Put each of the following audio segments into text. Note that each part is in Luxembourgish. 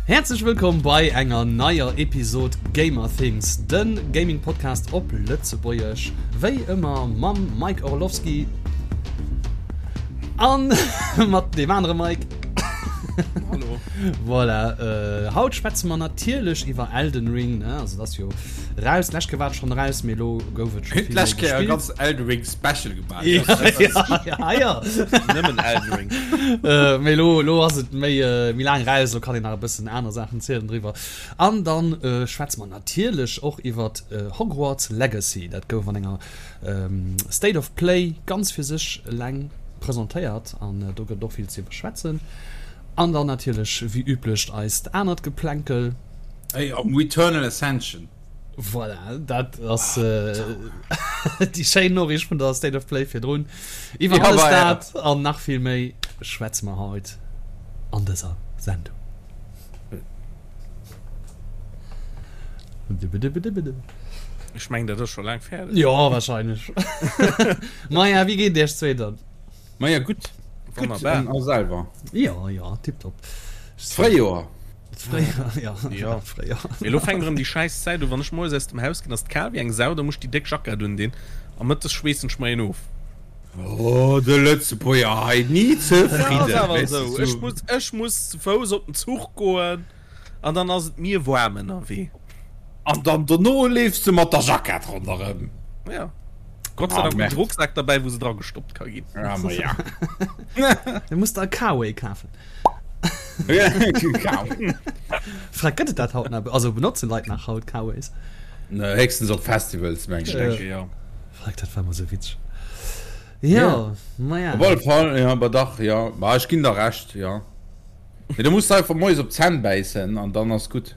Häerzlech wëllkomm bei enger neier Episod Gamer Things, de Gaming Podcast op Lëtzebuergesch, wéi ëmmer mam Mike Orlowski an mat deem anere Mike. Hallo. Voilà, äh, haut schwätze mer natierlech iwwer Elden Ring, ne? Also dat ass jo raus, d'lescht Kéier war et schonn raus, mee elo gouf et scho vill méi D'lescht Kéier e gespillt. ganz Elden Ring Special gemaach. Ja, ja, ja. Nëmmen Elden Ring. Äh, mee lo, lo ass et méi, äh, méi laang raus, lo kann een nach e bëssen aner Saachen zielen driwwer. An dann äh, schwätze mer natierlech och iwwer äh, Hogwarts Legacy. Dat gouf an enger ähm, State of Play ganz fir sech eleng presentéiert an äh, do gëtt et och vill ze iwwerschwätzen. An dann natierlech wéi üblech eist anert Geplänkel. Ey, am Returnal Ascension. Voilà, dat ass déi schéin Noriicht vun der State of Play virdrun. Iwwer Ja, alles war ja. dat an nach vill méi schwätze mer haut an dëser Sendung. Ech mengen, dat ass scho laang fäerdeg. Jo, wahrscheinlech. Maja, wéi geet et iech zwee dann? Maja, gutt. Gutt, Wonnerbar. an a selwer? Jo, jo, tipptopp. D'Fréijoer. Fréier, ja. Ja. Fréier. Mee elo fänkt erëm déi schäiss Zäit u, wann ech moies aus dem Haus ginn, ass et kal wéi eng Sau, da muss ech déi déck Jackett undinn a mëttes schweessen ech mer een of. Oh, de Lëtzebuerger hei, ni Ja, ass zefridden, awer weess de, esou. Ech sou. muss, ech muss zu Fouss op den Zuch goen an dann ass et mir waarm ënnerwee. An dann dono leefs de mat der Jackett ronderëm. Ja. Gott sei Ah, Dank hunn Merde. ech Rucksak derbäi, wou se dra gestoppt ka ginn. Ja, ma ja. Du muss der e K-Way kafen. Frag, gëtt et dat haut nach? Also benotzen Leit nach haut K-Ways? Ne, héchstens op Festivals, meng Ich ech. denke, ja. Frag, dat war mol sou witzeg. Ja, maja. Op alle Fall, ja, aber dach, ja. Ma ech ginn der Recht, ja. Mee du muss einfach moies op d'Zänn bäissen an dann ass gutt.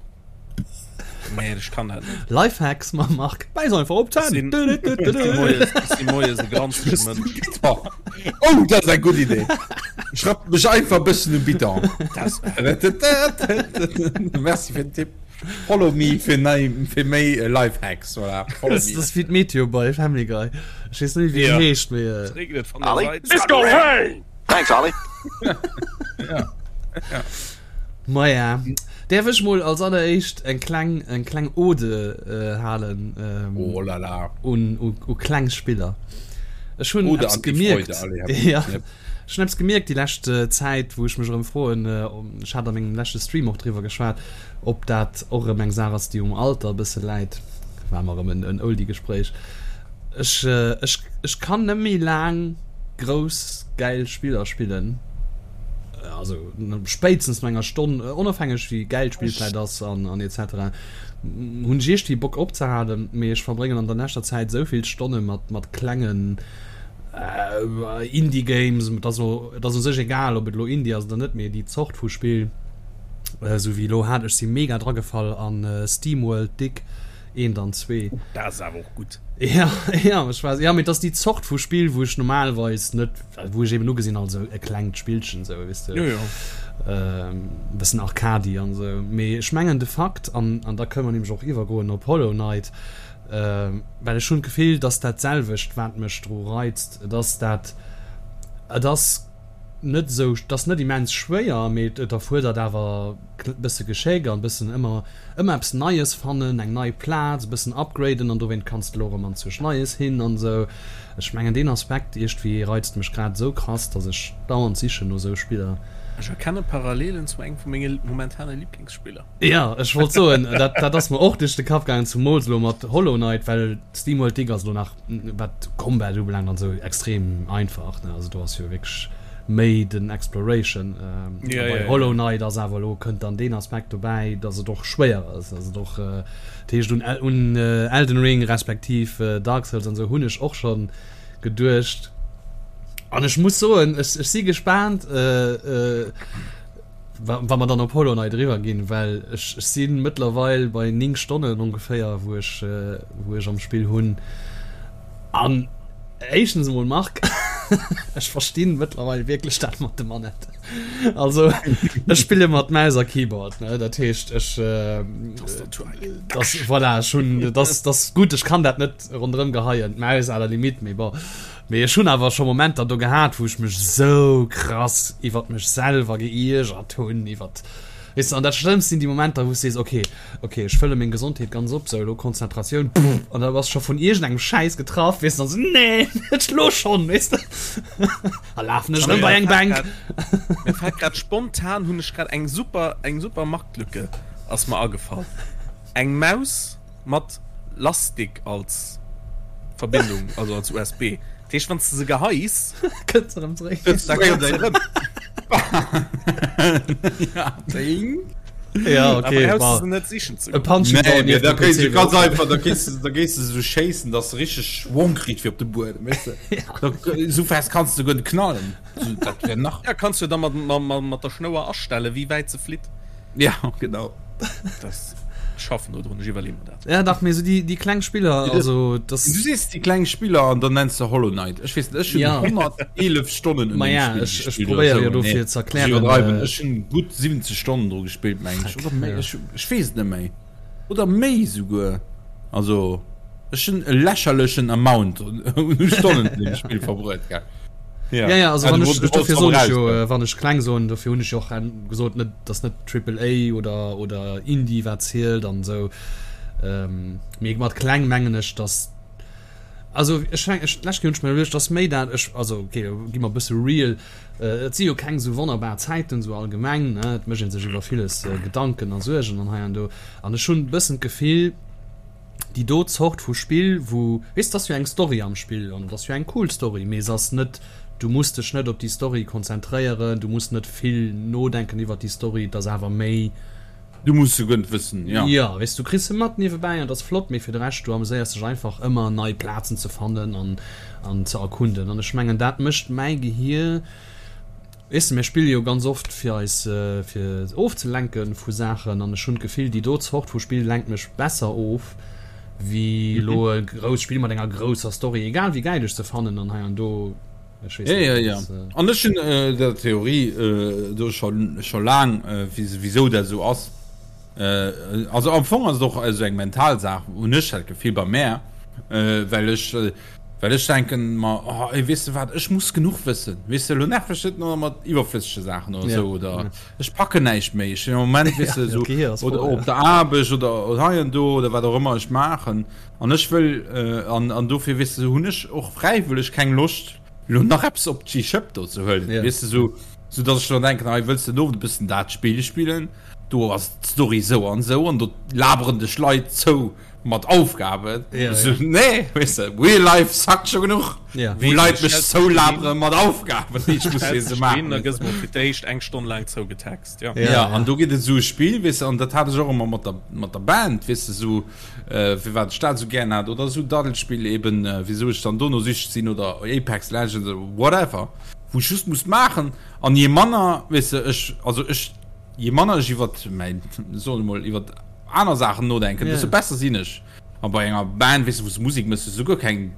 Nee, ech kann dat net. Lifehacks mam Marc, bäiss einfach op Ech d'Zänn! sinn, ech si moies, ech si moies e granzege Mënsch. Oh, dat ass eng gutt Idee! Ech rappen mech einfach e bëssen um Bidon. Merci fir den Tipp. Follow me fir nei, fir méi Lifehacks, voilà. Follow Das me. ass wéi d'Meteo bei Family Guy. Ech weess net méi, wéi Ja. en heescht, mee. Es regnet von der Olli, Seite. it's gonna rain! Thanks, Olli. Ja. Ja. Maja, däerf ech mol als alleréischt eng kleng, eng kleng Ode halen Oh la la. un, u, u kleng Spiller. Ech hunn Ode eppes an die gemierkt, Freude, allez, hab ja, Yep. ech hunn eppes gemierkt déi lescht Zäit, wou ech mech erëm froen, ech hat a mengem leschte Stream och driwwer geschwat, ob dat och erëm eng Saach ass, déi um Alter e bësse läit. War mer erëm en, en Oldie-Gespréich. Ech, ech, ech kann net méi laang grouss gäil Spiller spillen. Also spéitstens no enger Stonn, onofhängeg wéi gäil d'Spill vläit ass an an etc. Hunn ech iergdwéi Bock opzehalen, mee ech verbréngen an der leschter Zäit esou vill Stonne mat mat klengen Indie Games, et ass elo et ass u sech egal ob et elo Indie ass oder net, mee déi Zort vu Spill, esou wéi elo hat ech si mega dragefall an Steamworld Dig eent an zwee. Dat ass awer och gutt. Ja, ja, ech war, ja, mee et ass déi Zort vu Spill, wou ech normalerweis net, wou ech eben ugesinn als e klengt Spillchen esou, weess de. Jo, jo. E bëssen Arcady an esou. Mee ech mengen de Fakt, an, an da kënne mer nämlech och iwwergoen op Hollow Knight, well ech hunn d'Gefill, dass dat selwecht, wat mech dru reizt, et ass dat, et ass net esou, et ass net immens schwéier, mee et erfuerdert awer e bësse Geschéck an e bëssen ëmmer Ëmmer eppes Neies fannen, eng nei Plaz, e bëssen upgraden an dowéint kanns de lo erëm anzwousch Neies hin an esou. Ech mengen deen Aspekt iergdwéi reizt mech grad esou krass, dass ech dauernd sichen no esou Spiller. Ech erkenne Parallelen zu engem vu menge momentane Liblingsspiller. Jo, ech wollt soen, dat dat ass mer och duerch de Kapp gaangen, zumools elo mat Hollow Knight, well Steamworld Dig ass elo nach, wat Combat ubelaangt an esou, extrem einfach, ne, also do ass jo wierklech méi den Exploration. Ja, bei ja, ja. Hollow Knight ass awer elo kënnt dann deen Aspekt dobäi, dass et och schwéier ass, dass et och dat heescht un un Elden Ring respektiv Dark Souls an esou hunn ech och schonn geduecht an ech muss soen, ech ech si gespaant wa wa mer dann op Hollow Knight eriwwer ginn, well ech ech si mëttlerweil bei 9 Stonnen ongeféier wou ech wou ech am Spill hunn An éischtens emol, Marc, ech verstinn mëttlerweil wierklech dat mat de Manette. Also ech spille mat Maus a Keyboard, ne? Dat heescht ech das, voilà, ech hunn das, das gutt, ech kann dat net ronderëm geheien, d'Maus à la limite, mee bon. Mee ech hunn awer scho Momenter do gehat, wou ech mech sou krass iwwert mech selwer geiergert hunn, iwwert. Weess de, an dat Schlëmmst sinn déi Momenter, wou s de sees, okay, okay, ech fëlle meng Gesondheet ganz op, sou elo Konzentratioun, pff, an da bass scho vun iergendengem Schäiss getraff, weess de, an sou, nee, net elo schonn, weess de, a lafen ech erëm bei eng Bänk. Mir fält grad spontan, hunn ech grad eng super, eng super Marktlücke ass mer agefall, eng Maus mat Lastik als Verbindung, also als USB. Dat heescht, wann s de se geheis, Kënnt se erëm zeréck. Da kënnt se erëm. Ja, okay. Da brauchst du se net sichen ze E goen. Punching Nee, Ball nee, nieft da dem kéis PC du ganz wär och einfach, da kéis du, da géis du sou schéissen, dass du richteg Schwong kritt fir op de Buedem, weess de. Da, sou fest kanns du guer net knallen. So, dat wär nach. Ja, kanns du da mat, mat, mat der Schnouer astellen, wéi wäit se flitt. Ja, genau. Das schaffen do drun, ech iwwerleeë mer dat. Ja, dach, mee sou déi, déi kleng Spiller, also das. Du sees déi kleng Spiller an dann nenns de Hollow Knight. Ech weess net, ech hunn Ja. 111 Stonnen un Ma deem ja, Spill ech, ech gespillt oder probéiere jo sou. dofir Nee, ze ech erklären, iwwerdreiwen. äh, Ech hunn gutt 70 Stonnen dru gespillt, meng ech. Fuck, Oder méi, ja. ech, ech weess et net méi. Oder méi souguer. Also, ech hunn e lächerlechen Amount un Stonnen un deem Spill verbruet, gell. Ja, ja, also Ah, wann du ech, wollt- dofir du soen wollts ech jo, raus, äh, wann ech kleng soen, dofir hunn ech jo och gesot, net, dass net Triple A oder, oder Indie wat zielt an esou. Ähm, mee mat kleng mengen ech, dass, also ech meng, ech, d'lescht Kéier hunn ech mir iwwerluecht, dass méi dat, ech, also okay, gi mer e bësse real, äh, et si jo keng esou wonnerbar Zäiten esou allgemeng, ne, et mécht ee sech iwwer villes äh, Gedanken a Suergen an hei an do. An ech hunn e bëssen d'Gefill, déi do Zort vu Spill, wou, weess, et ass jo eng Story am Spill an et ass jo eng cool Story, mee se ass net, du muss dech net op déi Story konzentréieren, du muss net vill nodenken iwwert déi Story, et ass awer méi. Du muss se guer net wëssen, jo. Jo, weess, du kriss se mat niewebäi an et ass flott, mee fir de Rescht, du ameséiers dech einfach ëmmer nei Plazen ze fannen an an ze erkunden an ech mengen dat mécht mäi Gehier, Weess de, mir spille jo ganz oft fir eis fir ofzelenke vu Saachen an ech hunn d'Gefill, déi do Zort vu Spill lenkt mech besser of wéi elo e grousst Spill mat enger grousser Story, egal wéi gäil ech se fannen an hei an do. Ech weess Ja, net, ja, dat ja. ass. An ech hunn der Theorie do scho scho laang, wisou dat esou ass. Also am Fong ass et och esou eng mental Saach, hunn ech dat Gefill bei mär, well ech Well ech denken mer, oh ey, weess de wat, ech muss genuch wëssen, weess de, elo nerv mech net nach mat iwwerflëssege Saachen oder esou, oder ech packen näischt méi, ech sinn am Moment, weess de, esou, oder op der Aarbecht oder hei an do oder wat och ëmmer ech maachen, an ech wëll, an, an dofir, weess de, hunn ech och fräiwëlleg keng Loscht, elo nach eppes op d'Schëpp do ze huelen, weess de, esou, esou datt ech dann denken, hei, wëlls de den Owend e bëssen dat Spill spillen, do ass d'Story esou an esou an do laberen dech Leit zou. Mat Aufgaben? Ja, so, ja. Nee, weißt du, Real Life sackt schon genug. Ja. Wou Leit mech zoulabere mat Aufgaben, déi ech muss fir se maachen. Da gëss mol fir d'éischt eng Stonn laang zougetext, ja. Ja, ja, an do gëtt et esou e Spill, weess de, an dat hat ech och ëmmer mat der, mat der Band, weess de, esou, äh, firwat ech dat esou gären hat, oder esou Daddelspill eben, äh, wisou ech dann dono süchteg sinn, oder Apex Legends, oder whatever, wou ech just muss maachen, an je manner, weess de, ech, also ech, je manner ech iwwert mäin, soen ech mol, iwwert aner Saachen nodenken, desto besser sinn ech. A bei enger Band, weess de, wou s de Musek méchs, hues du guer keng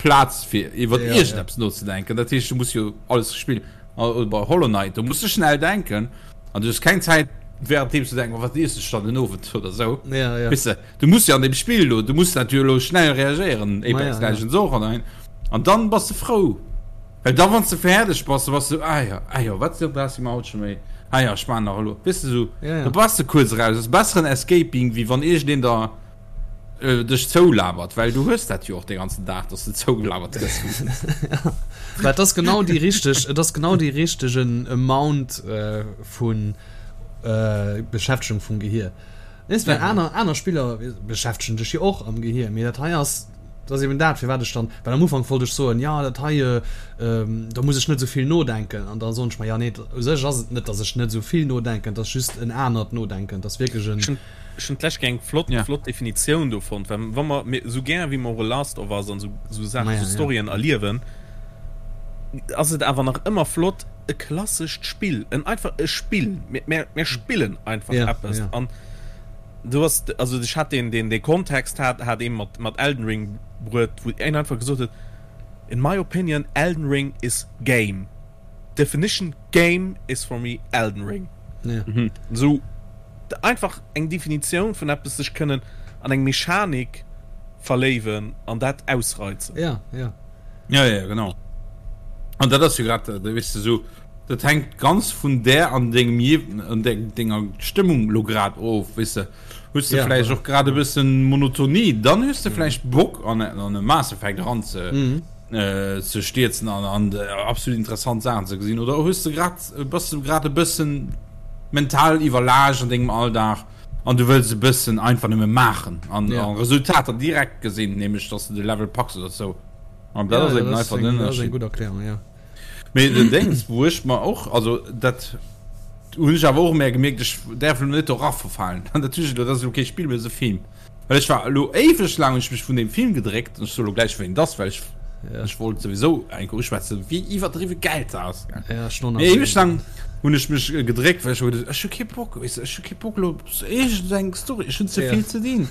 Plaz fir iwwer iergendeppes nozedenken. Dat heescht, du muss jo alles spillen. Oder bei Hollow Knight, do muss de schnell denken an du hues keng Zäit währenddeem ze denken, oh wat iess ech dann den Owend oder esou. Weess de, du muss jo an deem Spill elo, du muss dat jo elo schnell reagéieren, Apex Legends och an an dann bass de frou. Well da wann s de fäerdeg bass, da bass de sou, ah jo, ah jo, wat brauchs de mer haut scho méi, ah jo, ech maachen nach elo, weess de sou, da bass de kuerz eraus. Ass besseren Escaping, wéi wann iergendeen der dech zoulabert, well du hues dat jo och de ganzen Dag, dass de zougelabert gëss. Mä et ass genau déi richteg, et ass genau dee richtegen Amount vu Beschäftegung vum Gehier. Weess, well aner, aner Spiller beschäftegen dech jo och am Gehier, mee dat hei ass, Dat ass eben dat, firwat ech dann, well am Ufank wollt ech soen, jo dat hei, do muss ech net esou vill nodenken. An da soen ech mer, jo nee, u sech ass et net, datt ech net esou vill nodenken, et ass just en anert Nodenken, et ass wierklech en. Ech hunn d'lescht Kéier eng flott, flott Definitioun do fonnt, well wa mer, mir, esou gär wéi mer och e Last of Us an esou, esou Saachen, esou Storyen erliewen, ass et awer nach ëmmer flott, e klassescht Spill, en einfach e Spill, mir, mir, mir spillen einfach eppes an. Du hast, also ech hat den, den, den Kontext hat, hat ee mat, mat Elden Ring bruet, wou een einfach gesot huet, In my opinion, Elden Ring is game. Definition game is for me Elden Ring. Ja. Mhm. Sou einfach eng Definitioun vun eppes sech kënnen an eng Mechanik verléiwen an dat ausreizen. Ja, ja. Ja, ja, genau. An dat ass jo grad, weess de, sou. Dat hänkt ganz vun där an dengem je an denger Stëmmung lo grad of, weess de. Hues de vläicht och grad e bëssen Monotonie, dann hues de vläicht Bock an e Mass Effect eran ze ze stierzen an an absolut interessant Saachen ze gesinn. Oder hues de grad bass de grad e bëssen mental iwwerlaascht an dengem Alldag an du wëlls e bëssen einfach nëmme maachen an Resultater direkt gesinn, nämlech dass de de Level packs oder sou. An dat ass eben einfach den Ënnerscheed. Dat ass eng gutt Erklärung, jo. Mee den Déngs, wou ech mer och, also dat hunn ech awer och méi gemierkt, ech däerf elo net dora verfalen. An dat hunn ech elo, dat ass elo kee Spill, mee dat ass e Film. Well ech war elo éiweg laang hunn ech mech vun deem Film gedréckt, an ech soe elo gläich wéi en ass, well ech ech wollt souwisou eng Kéier uschwätzen, wéi iwwerdriwwe gäil dat ass. Mee éiweg laang hunn ech mech gedréckt, well ech hu geduecht, ech hu kee Bock, weess de, ech hu kee Bock elo op iergendeng Story, ech hunn ze vill ze dinn.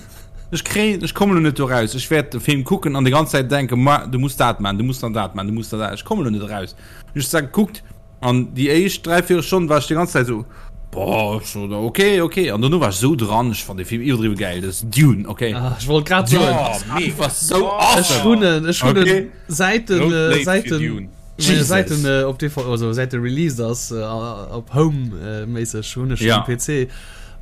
Ech kréien, ech kommen elo net do raus. Ech wäert de Film kucken an déi ganz Zäit denken, ma du muss dat man, du muss dann dat man, du muss dann dat. Ech kommen elo net eraus. Hunn ech da gekuckt an déi éischt dräivéierel Stonn war ech déi ganz Zäit esou, boah, so, okay, okay. An dono war ech esou dran, ech fand dee Film iwwerdriwwe gäil. Dat ass Dune, okay. Ah, ech wollt grad soen. Dune ass einfach sou awesome. Ech hunn en, ech hunn en Okay. säit den, Road Blade säit fir den, Dune. Meine Säit Jesus. den äh, op DVD, also säit de released ass äh, op Home äh, méisseg hunn ech Ja. um PC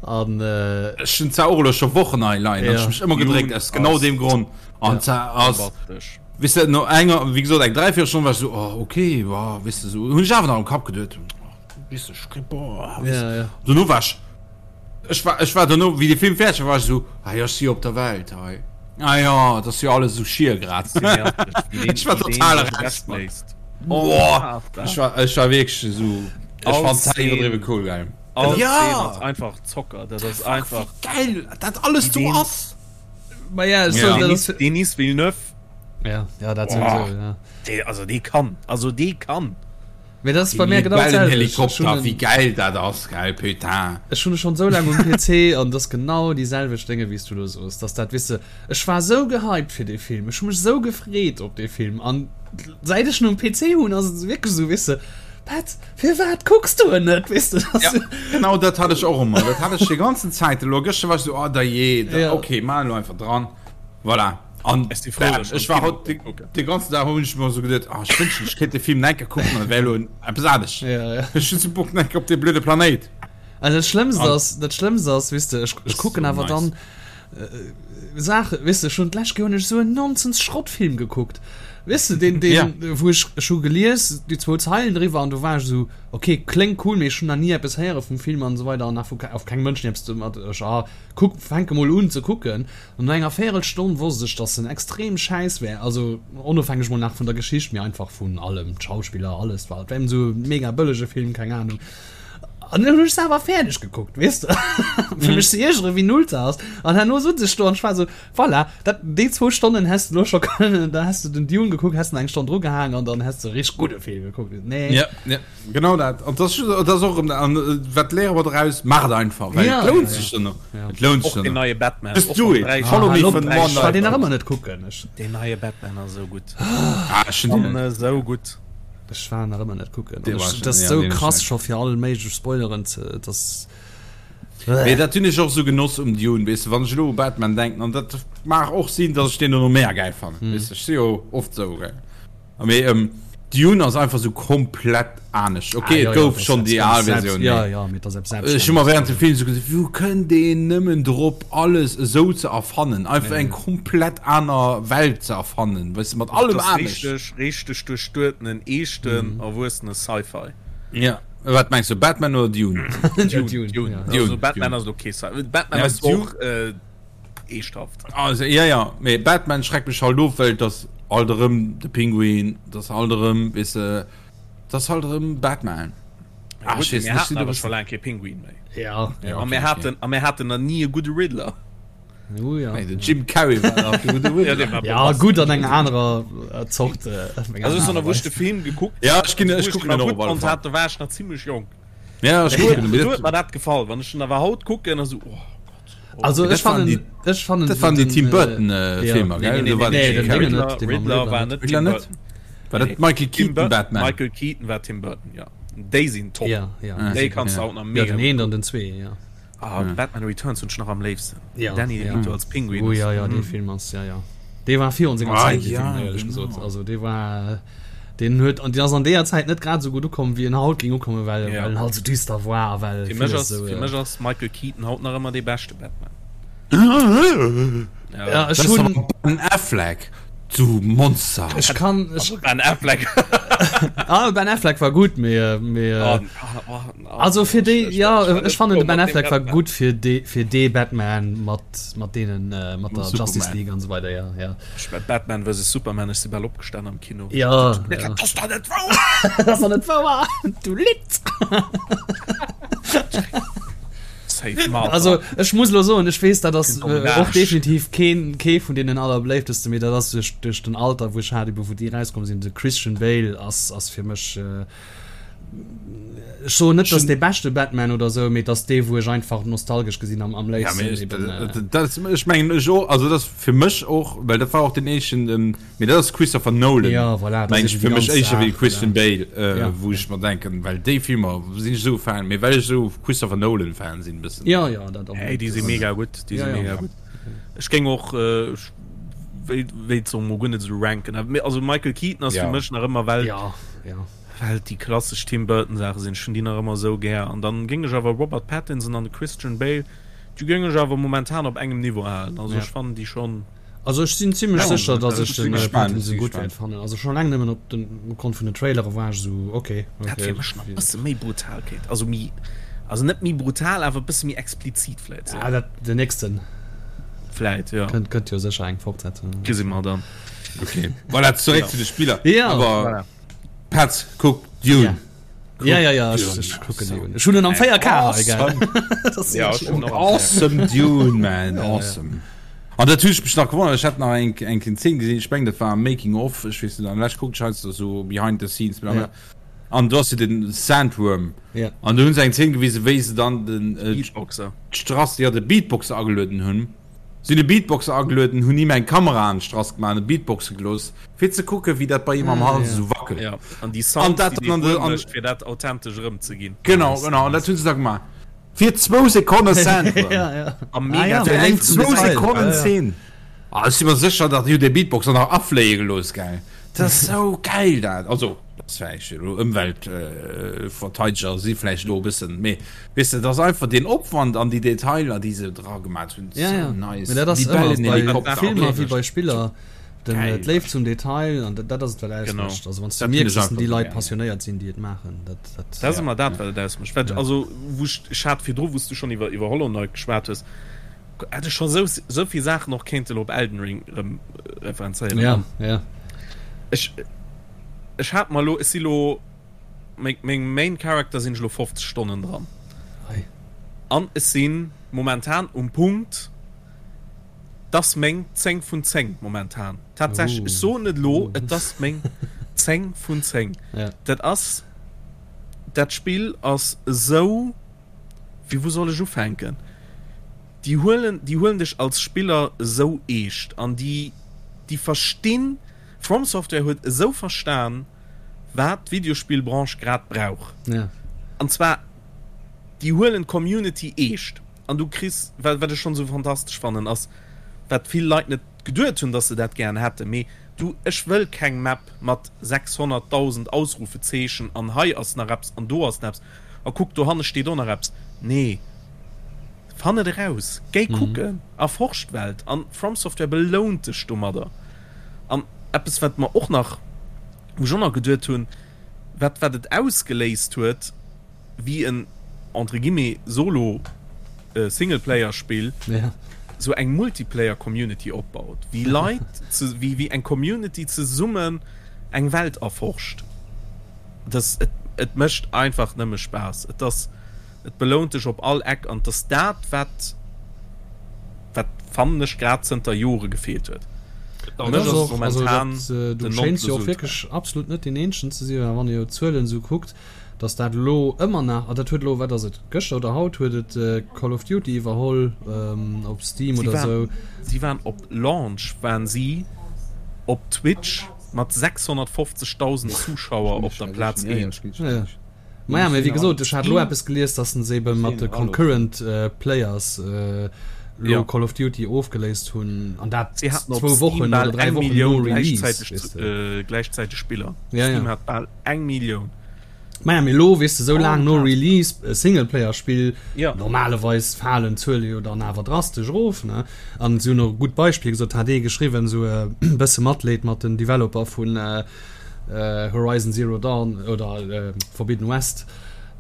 an äh, Ech hunn zwar och elo scho Wochen hei leien, an Ja. ech mech ëmmer gedréckt aus genau ass deem Grond. An zwar ass, Bombastesch. weess de, no enger, wéi gesot, eng dräivéierel Stonn war ech esou, oh, okay, wa, weess de, esou hunn ech awer nach am Kapp geduet, oh, weess de, ech kréi, boah, weess de. ja, ja. Dono war ech, ech war, ech war dono, wéi de Film fäerdeg war, war ech esou, ah jo, ech si jo op der Welt hei. Ah jo, et ass jo alles esou schier grad. Ech war total eraus. Boah, ech war, ech war wierklech esou, ech fand dat iwwerdriwwe cool, gell. All Ja! Szene ass einfach Zocker, dat ass einfach. Wéi geil dat alles do ass! Ma ja, ech soen, dat ass. Denis Villeneuve. Ja, ja, dat souwisou, ja. Dee, also dee kann, also dee kann. Mee dat ass bei mär genau dat selwecht. Helikopter, wéi gäil dat ass, gell, putain. Ech hunn e schonn esou laang um PC an et ass genau déi selwecht Dénge wéi s du elo soos, dass dat, weess de, ech war esou gehypt fir dee Film, ech hu mech esou gefreet op dee Film an säit ech en um PC hunn ass et wierklech esou, weess de, Pat, firwat kucks du en net, weess de, dass. Ja, genau dat hat ech och ëmmer, dat hat ech déi ganzen Zäit elo. Gëschter war ech esou, oh dajee, ok, maach elo einfach dran, voilà. An Ech si frou, dass ech war haut de ganzen Dag hunn ech mer sou geduet, ah, ech wënschten ech kéint de Film nach eng Kéier kucken, an et wär elo eppes anescht. Ja, ja. Ech hunn sou Bock nach eng Kéier op dee blöde Planéit. Also dat Schlëmmst An ass, dat Schlëmmst ass, weess de, ech, ech kucken so awer nice. dann äh, Saachen, weess de, ech hunn d'lescht Kéier hunn ech sou en Nonsens-Schrottfilm gekuckt, weess de, deen, deen, Ja. wou ech, ech hu gelies déi zwou Zeilen driwwer an du war ech sou, okay, kléngt cool, mee ech hunn nach ni eppes héiere vum Film an esou weider an nach vu auf keng Mënschen eppes domat, ech, ah, kuck, fänke mol un ze kucken. An no enger Véierelstonn wosst ech, dass en extrem schäiss wär, also onofhängeg mol nach vun der Geschicht, mee einfach vun allem, d'Schauspiller, alles war, et war eben esou e mega bëllege Film, keng Ahnung. An dann hunn ech se awer fäerdeg gekuckt, weess de, fir mech ze iergeren, wéi null se ass. An herno sot ech do an ech war esou, voilà, dat, déi zwou Stonnen häss de elo scho kënnen, da häss de den Dune gekuckt, häss nach eng Stonn drugehaang an dann häss de e richteg gudde Film gekuckt. Nee. Ja, ja. Genau dat. An das, das ass och erëm, an wat léiere mer doraus? Maacht et einfach, well Ja, et lount ja, sech duerno. ja. Et lount sech Och den duerno. neie Batman. Just Och do mat it. 3 Follow Ah, me lo, vun ech One war deen Night. nach ëmmer net kucken. Ech, Den neie Batman ass esou gutt. Ah, ech hunn deen An net. esou gutt. ech war nach ëmmer net kucken. Dee An war ech, schon, dat ass ja, sou deen ass krass schlecht. scho fir all méiglech Spoileren ze, dass. Mee dat hunn ech och sou genoss um Dune, weess de, wann ech elo u Batman denken, an dat mag och sinn, dass ech deen dono méi gäil fannen, weess de, ech si jo oft sou, gell. Mee ähm, Dune ass einfach sou komplett anescht. Ah, Okay, ja, et ja, gouf das schonn ist déi ganz al selbst, Versioun, ja, mee ja, mee das ist ech hu mer selbstständig. während dem Film sou gesot, wou kënnt een nëmmen drop, alles esou ze erfannen, einfach eng komplett aner Welt ze erfannen, weess de, mat allem Das ass anescht. richteg, richteg duerchduertenen, eeschten, erwuessene Sci-Fi. Ja, wat mengs du, Batman oder Dune? Dune, Dune, Dune. ja. Also Dune, Batman Dune. ass okay. Batman Ja, ass Dune. och äh, Eeschthaft. Also, ja, ja, mee Batman schreckt mech halt of, well dass alt erëm de Pinguin, dass alt erëm, weess de, dass halt erëm Batman. Ja, Ah, gutt, ech weess mir net, ech haten sinn e awer scho bëssen. laang kee Pinguin méi. Ja, Ja, A okay, mir okay. haten, a mir haten nach ni e gudde Riddler. Oh, ja. Nee, den Jim Carrey war nach de gudde Ja, Riddler. dee war Ja, bombastesch. gutt an enger anerer äh, Zort. Äh, op eng Also, aner ech Aart wou ech de Weis. Film gekuckt Ja, hat, ech ginn, also ech wou ech kucken den en nach och gutt op alle fonnt Fall. hat, do war ech nach zimmlech jonk. Ja, ech Do kucken huet en, do mee huet dat. mer dat gefall. Wann ech den awer haut kucken, da sou, oh Gott. Also Dat ech waren fannen, déi, ech fannen dat waren déi den, Tim äh, Burton äh, ja. Filmer, Nee, gell? nee, Do nee, war nee, den Nee, Jim den Carrey. Dingen Riddler, net, dee mam Riddler Riddler war net. net Riddler Tim net? Burton. War dat Nee. Michael Tim Keaton Burton, Batman? Michael Keaton war Tim Burton, ja. Déi sinn top. Ja, ja. Ah, Déi kanns du ja. haut nach Ja, mega den gutt een an kucken. den zwee, ja. Ah, Batman Returns hunn ech nach am léifsten. Ja, Danny ja. DeVito als Pinguin Oh ass. ja, ja, dee Mm. Film ass, ja, ja. Dee war virun senger Ah, Zäit, dee ja, Film, éierlech genau. gesot. Also dee war. Deen huet an deen ass an deeër Zäit net grad esou gutt ukomm wéi en haut géing ukommen, well Ja. well en halt esou düster war a well Fir mech villes ass, esou fir äh, mech ass Michael Keaton haut nach ëmmer dee beschte Batman. Ja, Ja. ech Das ass hunn awer Ben Affleck, du Monster! ech kann ech Also Ben Affleck. ah, Ben Affleck war gutt, mee äh, mee Oh, äh, oh, oh, oh, also fir ech, déi ech, ja ech war ech net fannen froh de Ben mat deem Affleck war Batman. gutt fir dee fir dee Batman mat mat deenen äh, mat der Justice Superman. League an esou weider ja ja. Ech war Batman vs Superman, ech si bal opgestan am Kino. Ja, ja. Dat ass doch net wouer! Dat ass doch net wouer! Du Litt! Safe Martha. Also ech muss lo soen, ech weess dat ass Kind um äh, och Arsch. definitiv keen kee vun deenen allerbléiftesten, mee dat ass duerch duerch den Alter wou ech hat, ebe wou déi rauskomm sinn. De Christian Bale ass ass fir mech äh, Ech soen net, dass dee beschte Batman oder sou, mee dass dee wou ech einfach nostalgesch gesinn am am Ja, léifsten mee ech, eben. Äh, dat, ech mengen ech och, also dat ass fir mech och, well dat war och den éischten, ähm, mee dat ass Christopher Nolan, ja, voilà, dat meng ass ech eben fir déi mech ganz éischter wéi Saach, Christian voilà. Bale, äh, Ja, wou ja. ech mer denken, well déi Filmer sinn ech esou Fan, mee well ech esou Christopher Nolan Fan sinn bëssen. Ja, ja, dat och Hey, net. déi si Das, mega gutt, déi ja, si ja. mega gutt. Ech géing och, äh, ech wéi wéilt se mol guer net esou ranken, awer mee also Michael Keaton ass fir Ja. mech nach ëmmer well Ja, ja. Well et déi klassesch Tim Burton Saache sinn, ech hunn déi nach ëmmer esou gär. An dann géing ech awer Robert Pattinson an de Christian Bale, déi géing ech awer momentan op engem Niveau halen. Also Ja. ech fannen déi schonn. Also ech sinn zimlech Ja, sécher, dass ech ech si den gespaant, ech Pattinson si gutt gespaant. wäert fannen. Also schonn eleng nëmmen op den opgrond vun den Trailere war ech esou ok, Dat ok. fir mech nach e bësse méi Brutalkeet, also méi, also net méi brutal, awer e bësse méi explizit vläit sou. Ah, dat den nächsten. Vläit, jo. Kënnt, kënnt jo sécher eng Fortsetzung. Gesi mer dann. Okay, voilà, zeréck Ja. zu de Spiller. Ja. Awer Voilà. Petz, kuck Dune. Ja. Ja, ja, ja, ech, ech kucken Dune. Ech hunn en am 4K hei, gell? Awesome. Ja, ech hunn och am 4K. Awesome Dune, man, awesome. An dat hunn ech mech nach gewonnert, ech hat nach eng eng Zeen gesinn, ech mengen dat war am Making of, ech weess net, an lech kuckt ech heiansdo sou behind the scenes, bla bla. Ja. An do ass jo den Sandworm. Ja. An do hunn se eng Zeen gewisen, wéi se dann den äh, Beatboxer. d'Strass, ja, de Beatboxer agelueden hunn. Si hunn e Beatboxer agelueden, hunn him eng Kamera an d'Strass gemaach an e Beatboxe gelooss, fir ze kucken, wéi dat bei him am Hals esou wackelt. Ja, an déi An Sounds, dat déi dann an dee de, Wuerm an, mécht, fir dat authentesch erëmzeginn. genau, genau, an dat hunn se da gemaach. Fir zwou Sekonne Sandworm. Ja, ja. A Ah mega ja, Fir fir eng eng zum zwou Detail. Ja, Sekonnen ja. Zeen. Ah, ech si mer sécher, datt déi hunn dee Beatboxer nach afléie gelooss, gell. Dat ass esou gäil, dat. Also, dat ass vläicht elo Ëmweltverteideger si vläicht elo e bëssen, mee weess de, dat ass einfach deen Opwand an déi Detailer, déi se dra gemaat hunn, Ja, sou ja. nice. Mee dat ass ëmmer bei Libellenhelikopter, Filmer okay. wéi bei Spiller, den, Geil. d'Léift zum Detail, an dat, dat ass et, wat Genau. ausmécht. Also, wann s du Dat hunn mierks, ech dass déi einfach Leit gär. passionéiert sinn, déi et maachen, dat, dat, Dat ass ja. ëmmer dat, wat et ausmécht. Wat, Ja. also, wou ech, ech hat virdru, wou s du schonn iwwer, iwwer Hollow Knight geschwat hues, hätt ech scho sou, sou vill Saachen och kéinten op Elden Ring erëm referenzéieren. Ja, An ja. ech, ech hat mer elo, ech si lo, meng, meng Main Character sinn ech elo 50 Stonnen dran. Hei. An ech si momentan um Punkt, 't ass meng 10 vun 10 momentan. Tatsächlech, ech Oh. soen et elo, et ass meng 10 vun 10. Ja. Dat ass, dat Spill ass esou. Wéi wou soll ech ufänken? Déi huelen, déi huelen dech als Spiller esou eescht an déi, déi verstinn, From Software huet esou verstan, wat d'Videospillbranche grad brauch. Ja. An zwar, déi huelen d'Community eescht an du kriss, wat, wat ech schonn esou fantastesch fannen, ass, wat vill Leit net geduet hunn, dass se dat gären hätten, mee du, ech wëll keng Map mat 600.000 Ausrufezeechen an hei ass nach eppes an do ass nach eppes. A kuck, dohanne steet och nach eppes. Nee, fann et eraus, géi kucken, erforsch d'Welt. An From Software belount dech domadder. An eppes, wat mer och nach, wou ech och nach geduet hunn, wat, wat et ausgeléist huet, wéi en, entre guillemets, Solo Singleplayer-Spill sou eng Multiplayer-Community opbaut, wéi Leit, wéi, wéi eng Community zesummen eng Welt erforscht. Das, et, et mécht einfach nëmme Spaass. Et ass, et belount dech op all Eck an et ass dat, wat, wat fannen ech grad zënter Jore gefeelt huet. Et Mech ass ass och, also momentan dat, äh, du den schéins jo och Nonplusultra. wierklech absolut net deen Eenzegen ze sinn, well wann ee jo d'Zuelen esou kuckt, dass dat elo ëmmer nach, a dat huet elo, wat ass et, gëschter oder haut huet et äh, Call of Duty iwwerholl ähm, op Steam Si oder waren, esou. si waren op Launch waren si op Twitch Mat 650.000 Zuschauer op der Plaz 1. Ja. Maja, mee wéi gesot, ech hat elo eppes gelies, dass se ebe mat de Concurrent Players. Lo Call of Duty ofgeléist hunn an dat zwou Wochen oder 3 Wochen no Release. Gläichzäiteg Spiller. Steam hat bal eng Millioun. Maja mee lo weess de sou laang no Release e Singleplayer-Spill, normalerweis falen d'Zuele jo dann awer drastesch erof ne. An si hunn och e gutt Beispill gesot, hat ee geschriwwen, sou e bësse Matleed mat den Developer vun Horizon Zero Dawn oder Forbidden West.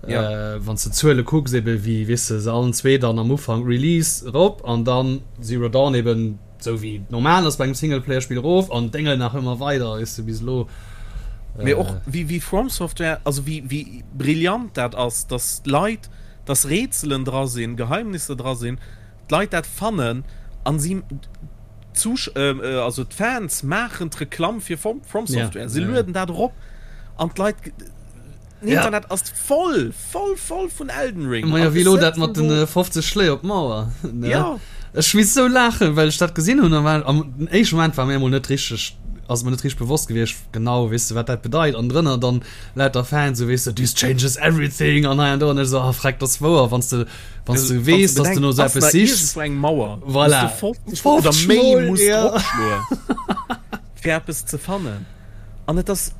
Ja. Wann s de d'Zuele kucks, ebe wéi, weess de, se allen zwee dann am Ufank Release erop an dann Zero Dawn eben sou wéi et normal ass bei engem Singleplayer-Spill erof an d'Déngel nach ëmmer weider, weess de, bis elo. Mee och wéi, wéi From Software, also wéi, wéi brillant dat ass, dass d'Leit, dass Rätselen dra sinn, Geheimnisser dra sinn, d'Leit dat fannen an si, d'Zusch, also d'Fans maachen d'Reklamm fir From Software, se lueden dat erop an d'Leit. Den Internet ja. ass voll, voll, voll vun Elden Ring. Ma ja, wéi lo dat mat den 50 Schléi op d'Mauer. Ne? Ja. Ech misst sou laachen, well ech dat gesinn hunn. War, am den éischten Moment war mir emol net richteg, ass mir net richteg bewosst gewiescht, genau, weess de, wat dat bedeit. An drënner dann lauter Fans, sou weess de, this changes everything an hei an do. An ech sou, ah freck, dat ass wouer, wann s de, wann s de weess, dass du no sou eppes sichs. Eng Mauer. Voilà. 50 oder méi muss ja. dropschloen, fir eppes ze fannen. An et ass,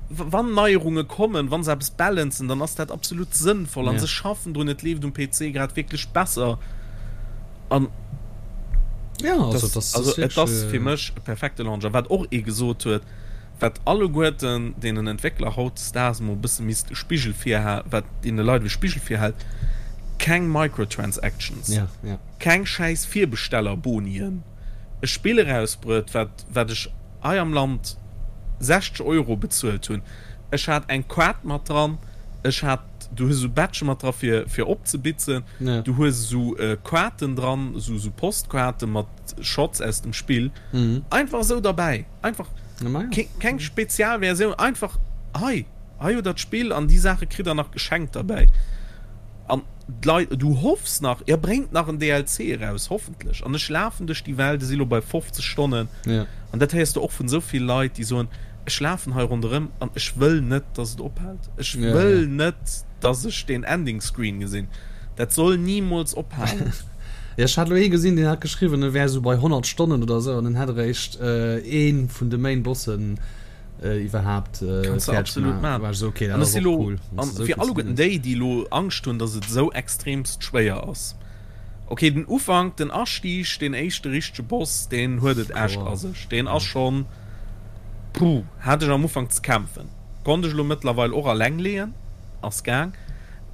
wann Neierunge kommen, wa se eppes balancen, dann ass dat absolut sënnvoll. An se schaffen drun, et leeft um PC grad wierklech besser. An also et ass fir mech e perfekte Launch. A wat och ee gesot huet, wat alleguerten deenen Entwéckler hautdesdaags emol e bësse misst e Spigel virhalen, wat deene Leit e Spigel virhält, Keng Microtransactions, keng schäiss Virbestellerbonien, e Spill erausbruet, wat wat ech hei am Land 60 Euro bezuelt hunn. Ech hat eng Kaart mat dran, ech hat, du hues esou Badge mat dra fir fir opzebitzen, du hues esou Kaarten dran, esou esou Postkaarte mat Shots aus dem Spill, einfach esou derbäi, einfach keng Spezialversioun, einfach hei, hei hutt der d'Spill an déi Saache kritt der nach geschenkt derbäi. An d'Leit, du hoffs nach, jo bréngt nach en DLC eraus, hoffentlech. An ech lafen duerch déi Welt, ech si lo bei 50 Stonnen, an dat héiers du och vun esou vill Leit, déi soen, ech lafen hei ronderëm an ech wëll net, dass et ophält. Ech wëll net, dass ech deen Ending Screen gesinn. Dat soll nimools ophalen. Jo, ech hat elo ee gesinn, deen hat geschriwwen, e wär esou bei 100 Stonnen oder esou an en hätt eréischt ee vun de Main Bossen iwwerhaapt Kannst du absolut maachen. War so, okay, dat ass och cool. An fir alleguerten déi, déi elo Angscht hunn, dass et esou extremst schwéier ass, okay, den Ufank, den Astieg, deen éischte richtege Boss, deen huet et echt a sech. Deen ass schonn, puh, hat ech am Ufank ze kämpfen. Konnt ech elo mëttlerweil och alleng leeën, ass gaang.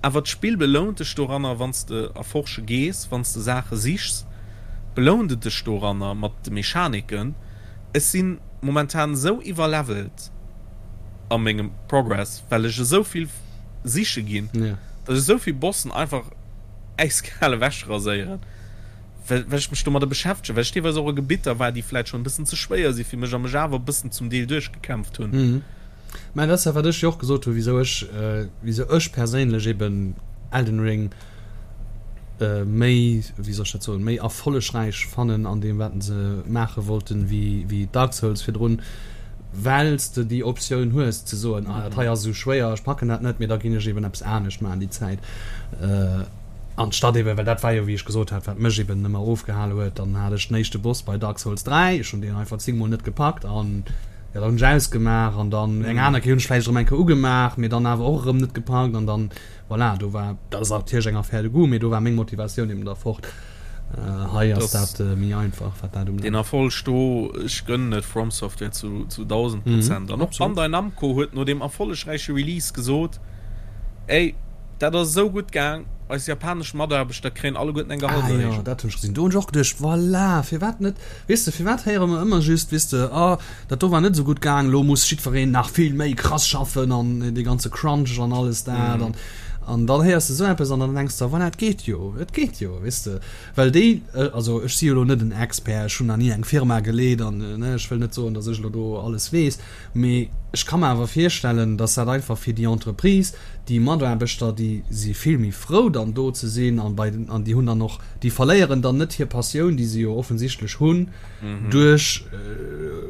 Awer d'Spill belount dech doranner, wann s de erforsche gees, wann s de Saache sichs, belount et dech doranner mat de Mechaniken. Ech sinn momentan esou iwwerlevelt a mengem Progress, well ech esou vill siche ginn, dass ech esou vill Bossen einfach äiskal ewech raséieren, well ech mech domadder beschäftegen, well ech deelweis och a Gebitter war, déi vläit schonn e bëssen ze schwéier si fir mech a mech awer e bëssen zum Deel duerchgekämpft hunn. Mä dat ass dat, wat ech jo och gesot hunn, wisou ech, wisou ech perséinlech eben Elden Ring méi, wéi soll ech dat soen, méi erfollegräich fannen an deem, wat se maache wollten, wéi, wéi Dark Souls virdrun, well s de déi Optioun hues ze soen, ah dat hei ass esou schwéier, ech packen dat net, mee da ginn ech eben eppes anescht maachen déi Zäit. Anstatt eben, well dat war jo, wéi ech gesot hat, wat mech eben ëmmer ofgehale huet, dann hat ech den éischte Boss bei Dark Souls 3, ech hunn deen einfach zéngmol net gepackt an jo, dann hunn ech ausgemaach an dann eng aner Kéier hunn ech vläicht erëm eng Kéier ugemaach, mee dann awer och erëm net gepackt an dann, voilà, do war, dat ass natierlech eng Affaire de goût, mee do war meng Motivatioun eben da fort. Hei ass dat méi einfach, wat dat ubelaangt. Deen Erfolg do, ech gönnen et From Software zu 1000 Prozent. An och Bandai Namco huet no deem erfollegräiche Release gesot, Ey, Dat ass esou gutt gaang, eis japanesch Mataarbechter kréien alleguerten eng Gehaltserhéijung. Ah jo, dat hunn ech gesinn. Do hunn ech och geduecht, voilà, firwat net, weess de, firwat héiere mer ëmmer just, weess de, ah, dat do war net esou gutt gaang, elo muss jiddwereen nach vill méi krass schaffen an dee ganze Crunch an alles dat an an dann héiers de esou eppes an dann denks de, voilà, et geet jo, et geet jo, weess de, well déi, also ech si jo elo net en Expert, ech hunn nach ni eng Firma geleet an, ne, ech wëll net soen, datt ech elo do alles weess, Mee ech ka mer awer virstellen, dass dat einfach fir déi Entreprise, déi Mataarbechter, déi si vill méi frou dann do ze sinn an bei den, an déi hunn dann och, déi verléieren dann net hir Passioun, déi se jo offensichtlech hunn, duerch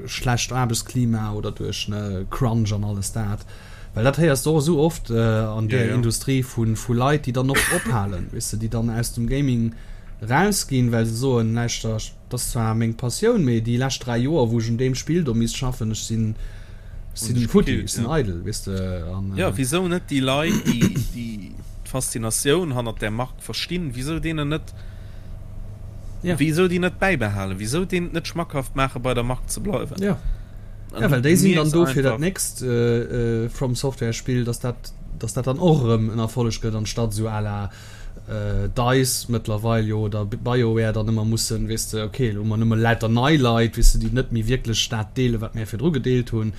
schlecht Aarbechtsklima oder duerch, ne, Crunch an alles dat. Well dat héiers de och esou oft an där Industrie vu Leit, déi dann och ophalen, weess de, déi dann aus dem Gaming. Rausginn, well se soen, Lauschter, dat ass zwar meng Passioun, mee déi lescht 3 Joer, wou ech un deem Spill do misst schaffen, ech sinn, ech sinn futti, ech sinn eidel, weess de. An. Jo, wisou net déi Leit, déi, déi d'Faszinatioun hannert där Mark verstinn, wisou deenen net, wisou déi net bäibehalen, wisou deenen et net schmackhaft maachen, bei der Mark ze bleiwen? Jo, jo, well déi sinn dann do fir dat nächst From Software Spill, dass dat, dass dat dann och erëm en Erfolleg gëtt, anstatt esou à la. Dice mëttlerweil jo oder BioWare dann ëmmer mussen, weess de, ok, elo hu mer nëmme lauter nei Leit, weess de, déi net méi wierklech dat deelen, wat mär virdru gedeelt hunn,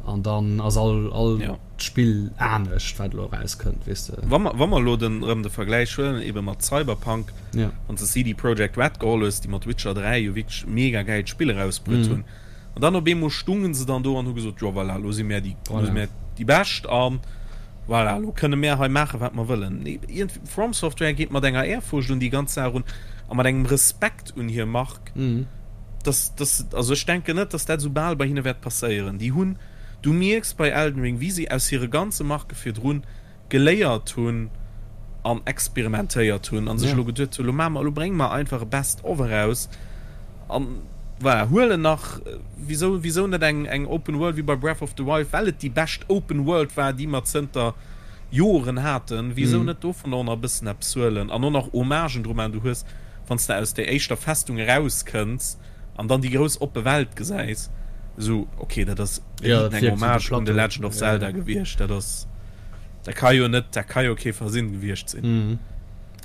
an dann ass all, all ja. Spill anescht, wat elo erauskënnt, weess de. Wa mer, wa mer elo den, erëm de Vergläich huelen, ebe mat Cyberpunk, ja. wann s de CD Projekt Red geholl hues, déi mat Witcher 3 jo wierklech mega gäilt Spill erausbruet mm. hunn, An dann op eemol stungen se dann do an hu gesot, jo voilà, elo si mär déi, elo si mär déi Bescht a voilà, elo kënne mär hei maachen, wat mer wëllen. Nee, iergendwéi, From Software geet mat enger Ehrfurcht un déi ganz Saach erun a mat engem Respekt un hir Mark, dass, dass, also ech denken net, dass dat esou bal bei hinne wäert passéieren. Déi hunn, du mierks bei Elden Ring, wéi si aus hire ganze Marke virdrun geléiert hunn an experimentéiert hunn an sech elo geduet hunn, elo maache mer, elo brénge mer einfach e Best of eraus an voilà, huelen nach, wisou, wisou net eng, eng Open World wéi bei Breath of the Wild, well et déi bescht Open World war, déi mer zënter Joren haten, wisou net dovun och nach e bëssen eppes huelen an och nach Hommagen dru maachen. Du hues, wann s de aus där éischter Festung erauskënns, an dann déi grouss oppe Welt gesäis, esou ok, dat ass ja, eng Hommage un The Legend of Zelda gewiescht, dat ass, dat ka jo net, dat ka jo kee Versinn gewiescht sinn. Mhm.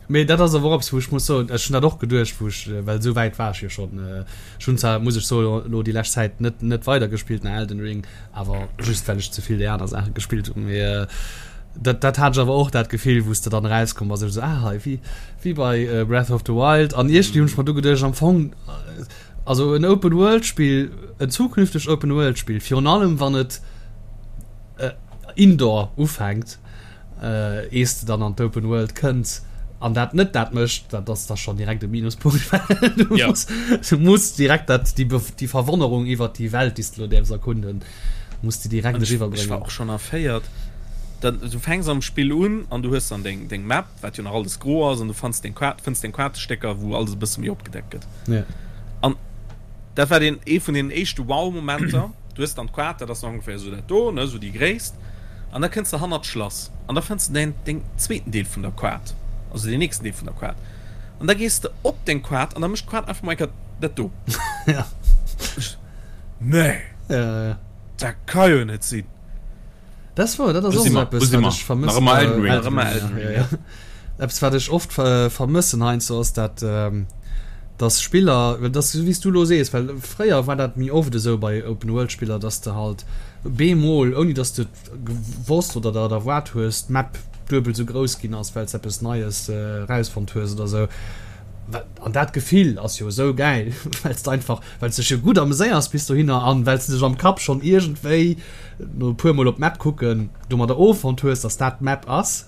Mee dat ass awer och eppes, wou ech muss soen, ech hunn dat och geduecht, wou ech, well esou wäit war ech jo schonn, ech hunn zwar, muss ech soen, elo déi lescht Zäit net, net weidergespillt nach Elden Ring, awer just well ech ze vill déi aner Saache gespillt hunn, mee dat, dat hat ech awer och dat Gefill, wou s de dann erauskomm bass, ech esou, ah hei, wéi, Wéi bei Breath of the Wild. An iergendwéi hunn ech mer du geduecht, am Fong, also en Open World Spill, en zukünftegt Open World Spill, virun allem wann et indoor ufänkt, ees de dann an d'Open World kënns an dat net dat mécht, dat ass da schonn direkt e Minuspunkt, well du muss, du muss direkt dat, déi, déi Verwonnerung iwwert déi Welt, déi s de elo däerfs erkunden, muss de direkt eriwwerbréngen. Ech war och schonn erféiert. Dann, du fänks am Spill un an du hues dann deng, deng Map. wat jo nach alles gro ass an du fanns deng Quart, fënns deng Quartestécker, wou alles e bësse méi opgedeckt gëtt. Ja. An dat war den ee vun den éischte Wow-Momenter. Du hues dann d'Quart, dat ass nach ongeféier esou dat do, ne, esou déi Gréisst. An da kënns de hannert d'Schlass an da fënns de däin, deng zweeten Deel vun der Quart, also deen nächsten Deel vun der Quart. An da gees de op deng Quart an da mécht d'Quart einfach mol eng Kéier dat do. Ja. Nee! Ja, ja. Dat ka jo net sinn! Dat ass wouer, dat ass och esou eppes, wat ech vermëssen. Nach ëmmer Elden Ring. Nach ëmmer Elden Ring, ja. Eppes, wat ech oft vermëssen heiansdo, ass dat, dass Spiller, well dat ass esou wéi s du elo sees, well fréier war dat méi oft esou bei Open-World-Spiller, dass de halt bemol, ouni dass de et gewosst oder der et erwaart hues, d'Map duebel esou grouss ginn ass, well s de eppes Neies erausfonnt hues oder esou. An dat Gefill ass jo esou gäil, well s de einfach, well s dech jo gutt ameséiers bis dohinner an well s de dech am Kapp schonn iergendwéi no e puer mol op d'Map kucken domadder offonnt hues, dass dat d'Map ass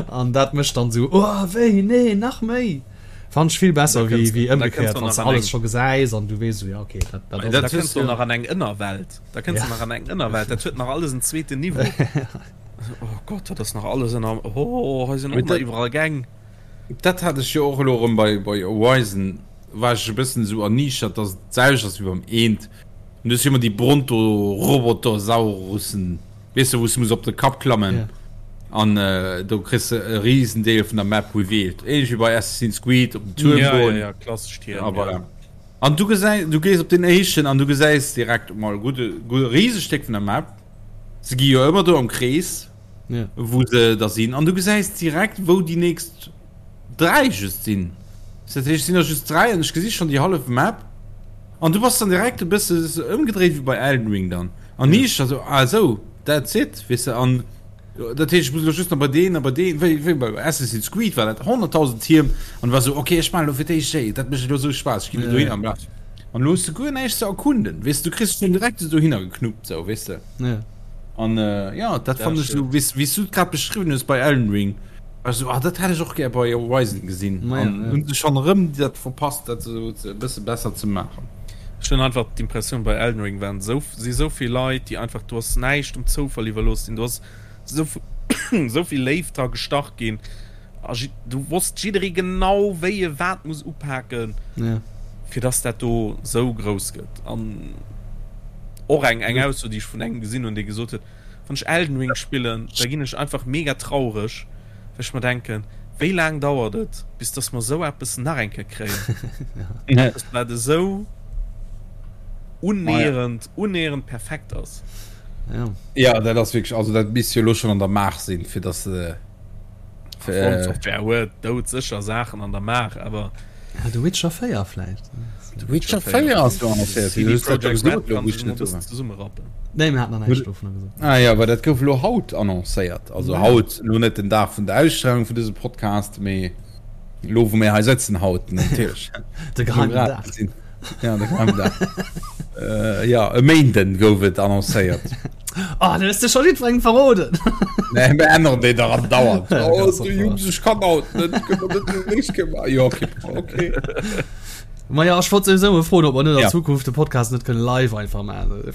an dat mécht dann esou, oh wéi, nee, nach méi! Fannen ech vill besser wéi wéi ëmgekéiert, wann s de alles scho gesäis an du weess esou, ja okay, dat dat ass et. Da kënns du nach an eng Ënnerwelt, da kënns du nach an eng Ënnerwelt, dat huet nach alles en zweeten Niveau. Oh Gott, dat ass nach alles ënner, oh hei sinn och nach iwwerall Gäng. Dat hat ech jo och elo erëm bei bei Horizon, war ech e bëssen esou erniichtert, dass et d'selwecht ass wéi beim Eent. An du hues jo ëmmer déi Bronto-Robotosaurussen, weess de, wou s de muss op de Kapp klammen an do kriss de e Risendeel vun der Map revealed. Ähnlech wéi bei Assassin's Creed op den Tuerm goen. Ja, ja, ja, klassesch Tierm, ja. Voilà. An du gesäis, du gees op deen éischten an du gesäis direkt emol e gudde, gudde Risestéck vun der Map. Se gi jo ëmmer do am Krees. Ja. Wou se da sinn. An du gesäis direkt, wou déi nächst 3 just sinn. Dat heescht, et sinn der just 3 an ech gesi schonn déi hallef Map. An du bass dann direkt e bësse ëmgedréit wéi bei Elden Ring dann. An ja. ich also, ah sou, that's it, weess de. An dat heescht, ech muss elo just nach bei deen a bei deen, wéi, wéi bei Assassin's Creed war dat 100.000 Tierm an war sou, okay, ech maachen elo fir d'éischt déi, dat mécht elo sou Spaass, ech ginn elo dohin an bla. An elo hues de guer näischt ze erkunden, weess de, du kriss dech direkt esou dohinner geknuppt, sou, weess de. Ja. An äh, ja, dat fand ech so, wéi wéi du grad beschriwwen hues bei Elden Ring. Also ah, dat hätt ech och gär bei Horizon gesinn. Ma ja, An ja. hunn se schonn erëm dat verpasst, dat esou e bësse besser ze maachen. Ech hunn einfach d'Impressioun bei Elden Ring waren esou si esou vill Leit, déi einfach do ass näischt dem Zoufall iwwerlooss sinn, do ass esou esou vill Léift dra gestach ginn. A do wosst jidderee genau, wéi e wat muss upaken, ja. fir dass dat do sou grouss gëtt. An och eng, eng Ausso, déi ech vun engem gesinn hunn, dee gesot huet, Wann ech Elden Ring spillen, da ginn ech einfach mega traureg, well ech mer denken, wéi laang dauert et, bis dass mer sou eppes nach eng Kéier kréien? Eppes, wat esou unnäherend, unnäherend perfekt ass. Ja. Ja, dat ass wierklech, also dat misst jo elo schonn an der Maach sinn, fir dass se. From Software huet doudsécher Saachen an der Maach, awer. Ja, The Witcher 4 vläicht. The Witcher 4 ass do annoncéiert. CD Projekt Red kann sech emol e bëssen zesummerappen. Nee, mir haten nach näischt dovunner gesot. Ah jo, well dat gouf elo haut annoncéiert. Also haut, elo net den Dag vun der Ausstrahlung vun dësem Podcast, mee elo wou mir hei sëtzen haut natierlech. De geheimen Dag. Ja, de geheimen Dag. Jo, e Méinden gouf et annoncéiert. Oh, du hues de scho jiddwerengem verroden. Nee, mir änneren déi dach andauernd. Oh, du Jungs, ech kann haut net. Kënne mer dat nächst Kéier maachen? Jo, okay, okay. Ma ja, ech wollt souwisou mol froen, ob mer net an Ja. Zukunft de Podcast net kënne live einfach maachen.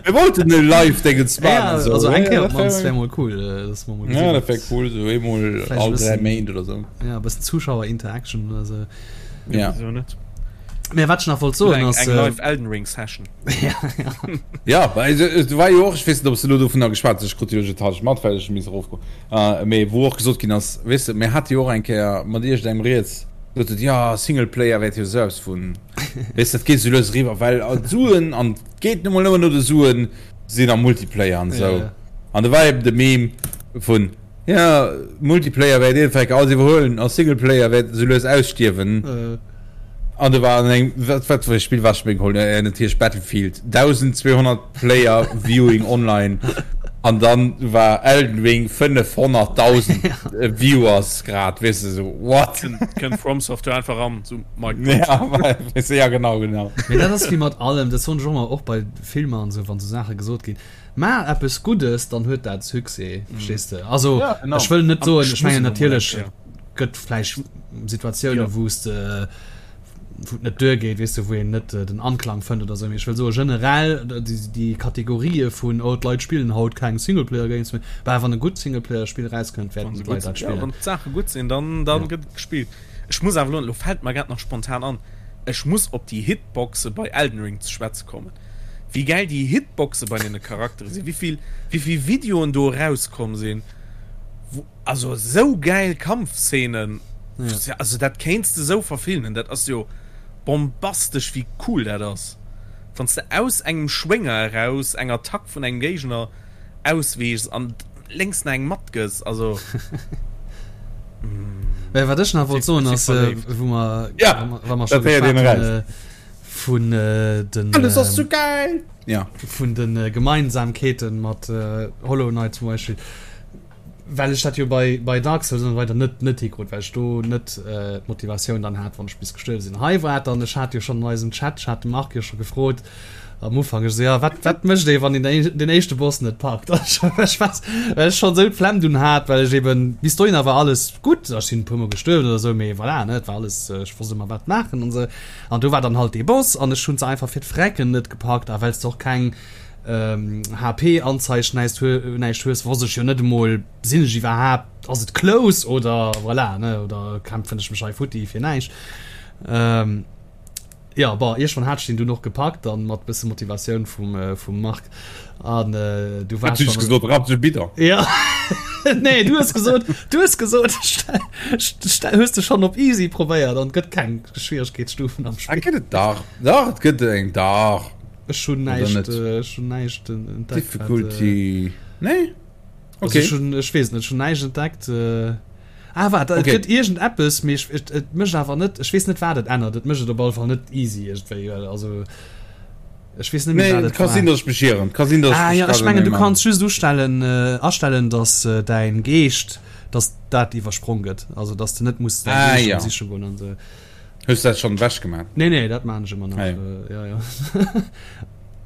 Mir wollten e Live-Dingens Ja, maachen. So. also eng Ja, Kéier dat op d'mannst wär- wär mol cool, äh, dass mer mol Ja, gesinn. dat wär cool, so eemol Vläicht e all dräi bëssen- Méint oder so. Ja, e bëssen Zuschauer-Interaction oder sou. Ja. Wieso net? Mä wat ech nach wollt soen Eng, ass, eng äh, live Elden Ring Session. ja, ja. Ja, well et, et war jo och, ech weess net, ob s de elo dovunner geschwat hues, ech krut jo iergendhalleg mat, well ech hu misse erofgoen, äh, mee wou och gesot ginn ass, weess de, mir hate jo och eng Kéier mat iergendengem rieds, gesot huet, jo, Singleplayer wäert jo esou eppes vun, weess de, dat geet esou lues eriwwer, well d'Suen, an et geet nu mol nëmmen no de Suen, sinn am Multiplayer an esou. Ja, ja. An do war eben de Meme vun, jo, Multiplayer wäert iergendwann alles iwwerhuelen a Singleplayer wäert esou lues ausstierwen. Äh. An do war an engem, wat, wat fir e Spill war ech mir geholl? Äh, natierlech Battlefield. 1200 Player Viewing online. An dann war Elden Ring 500.000 Viewers grad, weess de, sou, what? Kënnt From Software einfach an, sou, Mic drop. Ja, weess de, ja, genau, genau. Mee dat ass wéi mat allem, dat soen ech och ëmmer, och bei Filmer an esou, wann esou Saache gesot ginn, Maach eppes Guddes, dann huet dat Succès, verstees de? Also, Ja, genau. ech wëll net An soen, ech ech mengen muss elo mol eng natierlech, Kéier. gëtt vläicht Situatiounen, Ja. wou s de, wou et net duergeet, weess de, wou een net den Anklang fënnt oder esou. Mee ech wëll soen, generell déi, déi Kategorië vun, oh, d'Leit spillen haut keng Singleplayer-Games méi, bah, wann e gutt Singleplayer-Spill erauskënnt, Wann wäerten se d'Leit gutt dat sinn, ja, spillen. wann d'Saache gutt sinn, dann, dann Ja. gëtt et gespillt. Ech muss awer elo, elo fält mer grad nach spontan an, ech muss op déi Hitboxe bei Elden Ring ze schwätze kommen. Wéi gäil déi Hitboxe bei deene Charaktere sinn, wéi vill, wéi vill Videoen do erauskomm sinn, wou, also esou gäil Kampfszenen, Ja. also dat kéints de esou verfilmen, dat ass jo bombastesch wéi cool dat ass, wann s de aus engem Schwénger eraus eng Attack vun engem Géigner ausweechs an lénks nach eng matgëss, also. Mä wat ech nach wollt soen Ech ass, si verléift. wou mer, Ja, wa mer scho dat héiert een geschwat hunn, eraus. vun den Alles ass sou geil! Ja. Vun de Gemeinsamkeeten mat Hollow Knight zum Beispill, well ech dat jo bei, bei Dark Souls an esou weider net, net hikrut, well ech do net d'Motivatioun dann hat, wann ech bis gestuerwe sinn. Hei war et dann, ech hat jo schonn an eisem Chat, ech hat de Marc jo scho gefrot am Ufank, ech esou, jo, wat, wat mécht ee, wann een den éischte Boss net packt? Ech war, well ech schonn esou d'Flemm dunn hat, well ech eben, bis dohinner war alles gutt, ech sinn e puermol gestuerwen oder esou, mee voilà, ne, et war alles, ech wosst ëmmer wat maachen an esou. An do war dann halt dee Boss an ech hunn se einfach fir d'Frecken net gepackt a well s de och keng HP-Anzeig näischt näischt hues, wosst ech jo net emol, sinn ech iwwerhaapt, ass et close oder voilà, ne, oder kämpfen ech mech hei futti fir näischt. Jo, bon, iergendwann hat ech deen dunn och gepackt dann mat bësse Motivatioun vum vum Marc an du war Hues du gesot, rapp de Bidon? Ja nee, du hues gesot, du hues gesot, hues de schonn op easy probéiert an et gëtt keng Schwieregkeetsstufen am Spill. Ah, gëtt et dach. Dach, et gëtt eng, dach. Ech hunn näischt, ech hunn näischt entdeckt. Difficulty, nee? Okay. Also ech hunn, ech weess net, ech hunn näischt entdeckt. Ah, waart, et gëtt iergend eppes, mee ech, et, et mécht awer net, ech weess net, wat et ännert. Et mécht et op alle Fall net easy iergendwéi, well also ech weess net méi, wat Nee, et ka war. sinn, datt ech mech ieren. Ka sinn, datt ech Ah mech ja, ech grad mengen, du an engem kanns just ustellen, astellen, datt däin Geescht, datt dat iwwersprong gëtt, also datt s de net muss däin Ah Geescht ja. siche goen an esou. Hues du dat schonn ewech gemaach? Nee, nee, dat maan ech ëmmer nach. Ah, ja. Ja, ja.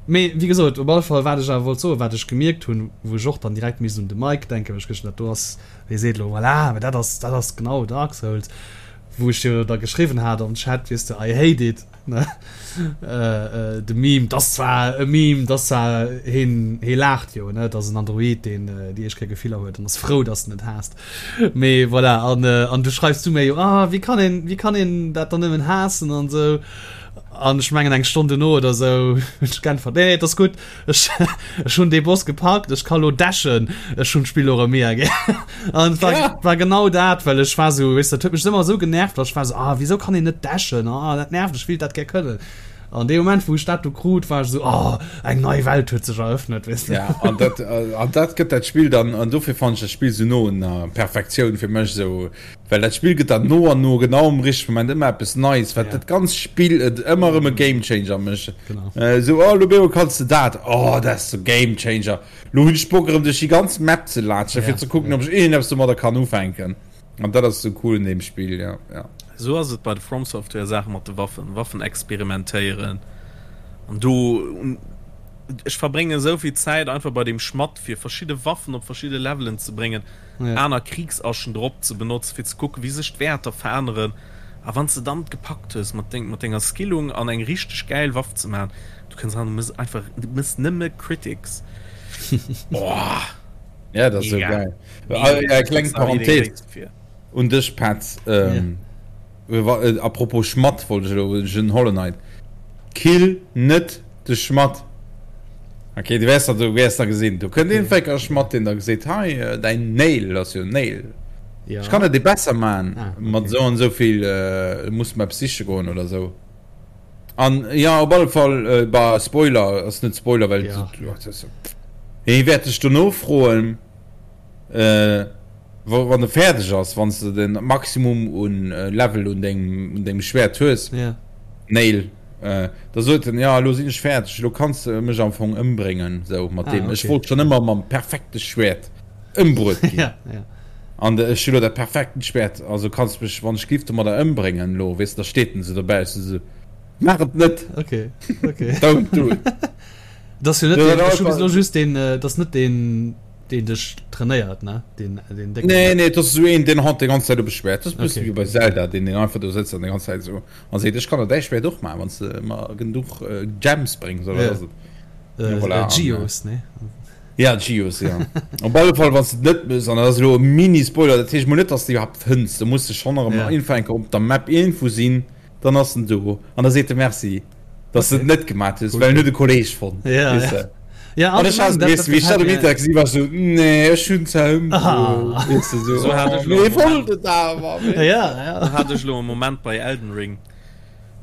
Mee wéi gesot, op alle Fall, wat ech awer wollt soen, wat ech gemierkt hunn, wou ech och dann direkt misst un de Mike denken, well ech gëscht dat do ass, dee seet elo, voilà, mä dat ass, dat ass genau Dark Souls. Wou ech jo da geschriwwen hat am Chat, weess de, I hate it, ne? De Meme, 't ass zwar e Meme, 't ass zwar, heen, hee laacht jo, ne? 't ass en Android, deen déi éischt Kéier Gefiller huet an ass frou, dass en et haasst. Mee voilà, an, an du schreifs du mir jo, ah, wéi kann een, wéi kann een dat dann nëmmen haassen an esou. An ech mengen eng Stonn duerno oder esou hunn ech geäntwert, nee, nee, 't ass gutt. Ech, ech hunn dee Boss gepackt, ech ka lo dashen, ech hunn d'Spill lo erëm mega gär. An et war, ja. war genau dat, well ech war sou, weess, dat huet mech ëmmer esou genervt, well ech war sou, ah, wieso kann een net dashen, ah, dat nervt, ech wéilt dat gär kënnen. An dee Moment, wou ech dat do krut, war ech sou, oh, eng nei Welt huet sech eröffnet, weess de. Ja, an dat, an dat gëtt dat Spill dann, an dofir fannen ech dat Spill sou no un der Perfektioun fir mech, sou, Well dat Spill gëtt der no an no genau am richtege Moment ëmmer eppes Neies, wat ja. dat ganz Spill et ëmmer erëm e Game Changer mécht. Genau. Äh, so, oh, lo bemol kanns de dat. Oh, dat ass so Game Changer. Lo hunn ech Bock erëm duerch déi ganz Map ze latschen, ja. fir ze kucken, ja. ob ech iergendeppes domadder kann ufänken. An dat ass so cool un deem Spill, ja. ja. So ass et bei de From Software Saache mat de Waffen, Waffen experimentéieren. An do ech verbrénge souvill Zäit einfach bei dem Schmatt fir verschidde Waffen op verschidde Levelen ze bréngen. aner Kriegsaschen drop ze benotzen, fir ze kucken, wéi sech d'Wäerter veränneren. A wann s de dann gepackt hues, mat deng, mat denger Skillung an eng richteg gäil Waff ze maachen, du kënns ran, du mëss einfach, du mëss nëmme Critics. Boah! Ja, dat ass esou geil. Mega. Kleng Parenthese un dech, Petz. A propos Schmatt wollt ech elo den Hollow Knight. Kill net de Schmatt. Ok, du wäers du wäers da gesinn. Do kënnt een Fécker Schmatt, deen da geseet, hei däin Nail ass jo Nail. Ja. Ech kann et dir besser man ah, okay. mat sou an sou vill äh, muss mer eppes siche goen oder sou. An ja op alle Fall äh, bah, Spoiler ass net Spoiler, well ja. Hie wäert dech dono froen. Äh, wann de fäerdeg ass, wann du den Maximum un äh, Level un dengem, un dengem Schwert hues, yeah. Nail, äh, da sot en, ja, lo sinn ech fäerdeg, lo kanns du mech am Fong ëmbréngen, sou mat ah, dem. Okay. Ech wollt schon ëmmer mam perfekte Schwert ëmbruet ginn. ja, ja. An ech hu lo dat perfekten Schwert, also kanns mech, wann ech giff domadder ëmbréngen, lo, weess du, da steet en sou dobäi, ech so, mach et net! Okay, okay. Don't do it. Das jo net, den, ech hu bis lo just den, äh, das net den, Deen dech trainéiert, ne? Deen, deen décken. Nee, nee, dat ass esou een, deen haut déi ganz Zäit op e Schwäert. Dat ass e bësse wéi bei Zelda, deen, deen einfach do sëtzt an déi ganz Zäit esou a seet, ech kann der däi Schwäert och maachen, wann s de mer genuch Gems bréngs, oder wat ass et? Ja, voilà. Geos, ne? Ja, Geos, ja. Op alle Fall, wann s de et net méchs, an dat ass elo e Mini-Spoiler, dat heescht mol net, dass de iwwerhaapt fënns, do muss de schonn erëm iergendwann eng Kéier op der Map iergendwou sinn, dann ass en do an da seet e Merci. dass du et net gemaat hues, well en huet e Kolleg fonnt. Ja, weess de. Ja, an ech hat, weess du, wéi ech dat um Internet gesinn, war ech sou, nee, ech hunn zwar ëmbruet, weess du, sou, So hat ech lo mee wollt et awer, weess du. Ja, ja. So hat ech lo e Moment bei Elden Ring.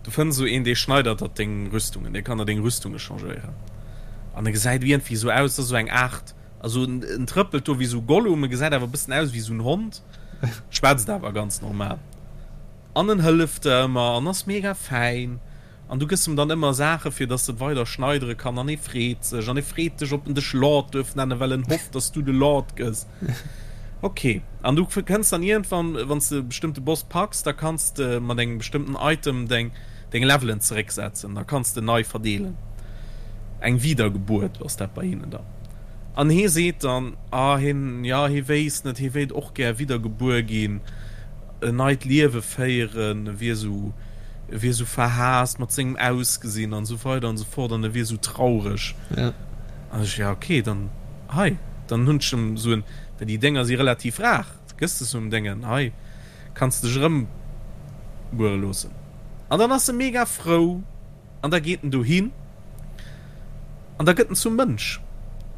Du fënns esou een, dee schneidert der deng Rüstungen, dee kann der deng Rüstunge changéieren. An e gesäit iergendwéi esou aus, dat ass esou eng Aart, also en trëppelt do wéi esou Gollum, e gesäit awer e bëssen aus wéi esou en Hond, schwätzt awer ganz normal. An en hëlleft der ëmmer an ass mega fäin an du gëss em dann ëmmer Saache fir dass en weider schneidere kann an e freet sech an e freet dech ob en dech Lord duerf nennen well en hofft dass du de Lord gëss. Ok an du kënns dann iergendwann wann s de e bestëmmte Boss packs da kanns de mat engem bestëmmten Item deng deng Levelen zerécksetzen da kanns de nei verdeelen. Eng Wiedergebuert ass dat bei hinnen dann. An hee seet dann ah hien jo hie wéisst net hie wéilt och gär widdergebuer ginn. en neit Liewe féieren, e wier esou, e wier esou verhaasst mat sengem Ausgesinn an esou weider an esou fort an e wier esou traureg. Ja. An ech, ja okay, dann hei, dann hunn ech em esou en, well déi Dénger si relativ rar, gëss de esou em Déngen, hei kanns de dech erëmbuere loossen. An dann ass e mega frou. An da geet en dohin an da gëtt en zum Mënsch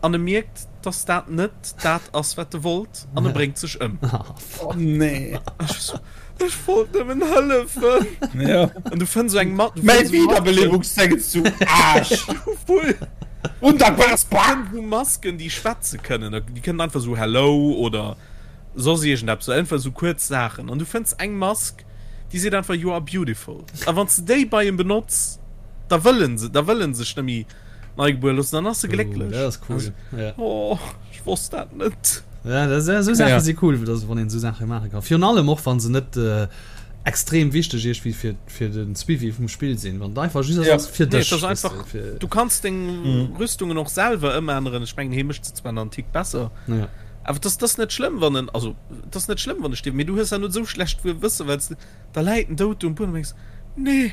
an e mierkt, dass dat net dat ass, wat e wollt an e bréngt sech ëm. Oh nee. Ech wollt nëmmen hëllefen. Ja. An du fënns esou eng Mat. Mäi Wiederbelebungsdéngens du Aarsch! Voll. Undankbares Bak! Hu Masken, déi schwätze kënnen. Déi kënnen einfach esou Hello oder soss iergendeppes, einfach esou kuerz Saachen. An du fënns eng Mask, Déi seet einfach you are beautiful. A wann s de déi bei em benotz, da wëll en se, da wëll en sech net méi neigebuer loossen, dann ass e glécklech. Oh, dat ass cool. Ja. Oh, ech wosst dat net. Ja, dat, esou Saache si cool, dass, wann een esou Saache maache kann. Virun allem och, wann se net äh, extrem wichteg iergendwéi fir, fir den Suivi vum Spill sinn. Wann et einfach just ja. ass fir dech. Nee, das einfach, fir... Du kanns deng mm. Rüstungen och selwer ëmänneren. Ech mengen, hie mécht se zwar nach en Tick besser. Ja. Awer dass dass net schlëmm wann en also dass net schlëmm wann e stierft, mee du hues awer net esou schlecht Gewësse well s de da läit en dout do um Buedem an denkst, nee,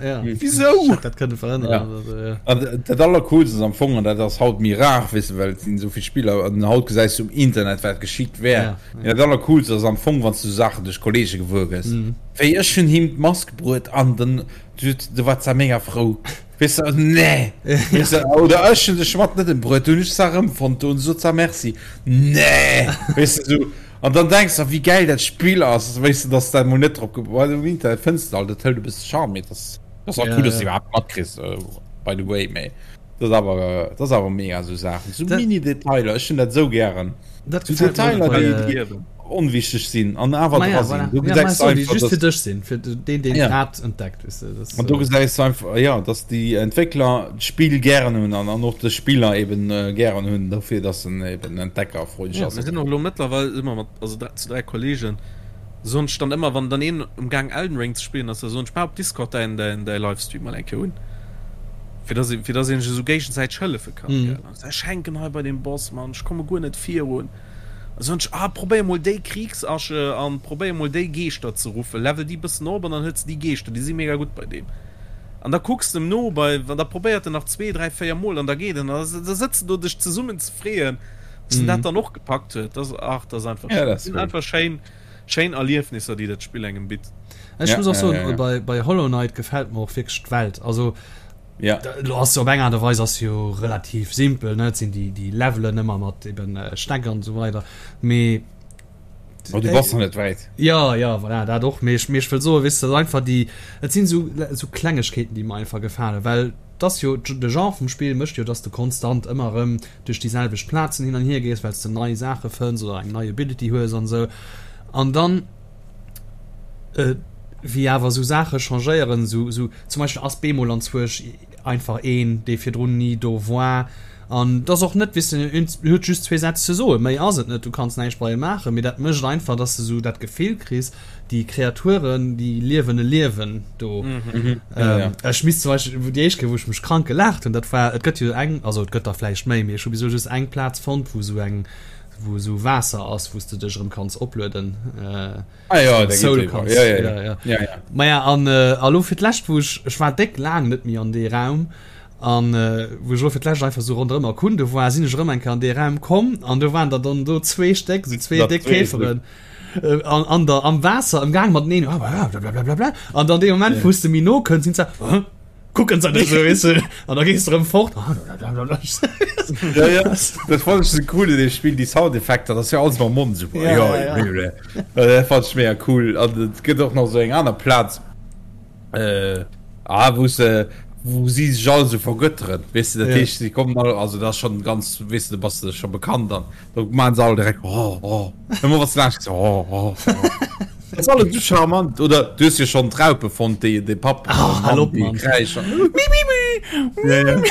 ja. wisou? Ech hätt dat kënne verhënneren Ja. oder sou, ja. An dat allercoolst ass am Fong, an dat ass haut méi rar, weess de, well et sinn esou vill Spiller an haut gesäis du um Internet wat geschitt wär. Ja, Mee dat allercoolst ass am Fong wann s du Saachen duerch Kollege gewuer gëss. Mhm. Wéi ech hunn him d'Mask bruet an den du war zwar mega frou. Weess de, nee! Weess de, oder ech hunn de Schmatt net embruet, du hunn ech zwar erëmfonnt do, an sot zwar Merci. Nee! Weess de, sou. An dann denks de, wéi gäil dat Spill ass, weess de, dass dat mol net drop ge-, well um Internet fënns de alt, dat hëlt e bësse Charme, mee dat ass och Ja, cool, dass de ja. iwwerhaapt matkriss, by the way, mee dat ass awer, dat ass awer mega, sou Saachen, sou Dat- Mini-Detailer, ech hunn dat sou gären, Dat sou gefält mir Detailer, och bei, déi, äh, déi onwichteg sinn an awer Ma ja, dra sinn. voilà. Du Ja, ma gesäis so, déi einfach, just dass fir dech sinn, fir deen, deen Ja. grad entdeckt, weess de, das, An do äh, gesäis du einfach, ja, dass déi Entwéckler d'Spill gären hunn an, an och de Spiller eben äh, gären hunn, dofir, dass en eben entdeckerfreundlech Ja, ass. mir sinn och elo mëttlerweil si mer mat, also zu 3 Kollegen, soen ech dann ëmmer, wann dann een um Gaang Elden Ring ze spillen ass, da soen ech, maach op Discord däin, däin, däi Livestream mol eng Kéier un, fir dass ee, fir dass een sech esou géigesäiteg hëllefe kann, gell. An ech hänken hei bei deem Boss, Mann, ech komme guer net virun. Da soen ech, ah, probéier mol déi Kriegsasche an probéier mol déi Geeschter ze ruffen, level déi bëssen op an dann hues de déi Geeschter, déi si mega gutt bei deem. An da kucks de em no bei, an da probéiert en nach zwee, dräi, véier Mol an da geet en. An da sëtz de do dech zesummen ze freeën, dass en dat dann och gepackt huet. Dat ass, ach, dat ass einfach Ja, schéin. dat Dat ass sinn cool. einfach schéin, schéin Erliefnisser, déi dat Spill engem bitt. Ech Ja, muss och ja, soen, ja, ja. bei, bei Hollow Knight gefält mer och wierklech d'Welt. Also, Ja. Lo ass op eng Aart a Weis ass jo relativ simpel, ne? Et sinn déi, déi Levelen ëmmer mat eben Stäck an esou weider, mee. Oh, du bass nach net wäit. Ja, ja, voilà, dat och. Mee ech, mee ech wëll soen, weess de, dat einfach déi, et sinn esou, esou Klengegkeeten, déi mer einfach gefalen, well et ass jo, de Genre vum Spill mécht jo, dass de konstant ëmmer erëm duerch déi selwecht Plazen hin an hier gees, well s de nei Saache fënns oder eng nei Ability hues an esou. An dann. Wéi awer esou Saache changéieren, esou esou zum Beispill ass bemol anzwuersch einfach een, dee virdrun ni do war an et ass och net, weess de, en huet just zwee Sätz ze soen, méi ass et net, du kanns näischt bei em maachen, mee dat mécht einfach, dass de esou dat Gefill kriss, déi Kreaturen, déi liewen e Liewen do. Ech misst zum Beispill, wou déi éischt Kéier, wou ech mech krank gelaacht hunn, dat war, et gëtt jo eng, also et gëtt der vläicht méi, mee ech hu bis elo just eng Plaz fonnt, wou esou eng, wou esou Waasser ass, wou s de dech erëm kanns oplueden. Ah ja, da Soul kanns. Ja, ja, ja. Ja, ja. ja. Maja, an äh, elo fir d'lescht, wou ech, ech war déck laang net méi an dee Raum, an äh, wou ech elo fir d'lescht einfach sou ronderëm erkunde war, sinn ech erëm eng Kéier an dee Raum komm, an do waren der dann do zwee Stéck, sou zwee déck Käferen äh, an, an der, am Waasser am Gaang mateneen, blablabla, an dann dee Moment, wou s de méi no kënns, sinn se, Kucken se net esou, weess de, an da gees de erëm fort. Ja, ja, dat fand ech sou cool in dem Spiel, déi Soundeffekter, dat ass jo alles mam Mond esou. Ja, ja, ja. Dat fand ech mega cool. An et gëtt och nach esou eng aner Plaz, äh, ah, wou se, wou si sech all esou vergötteren, weess de, dat Ja. heescht, si kommen all, also dat ass schonn ganz, weess de, da bass de scho bekannt an da maachen se all direkt oh, oh, ëmmer wann s de laanscht gees, oh, oh, oh. Dat ass alles sou charmant. Oder du hues jo schonn d'Raupe fonnt, déi de Papp Oh, hal op, Mann. kräischen. Ja, ja.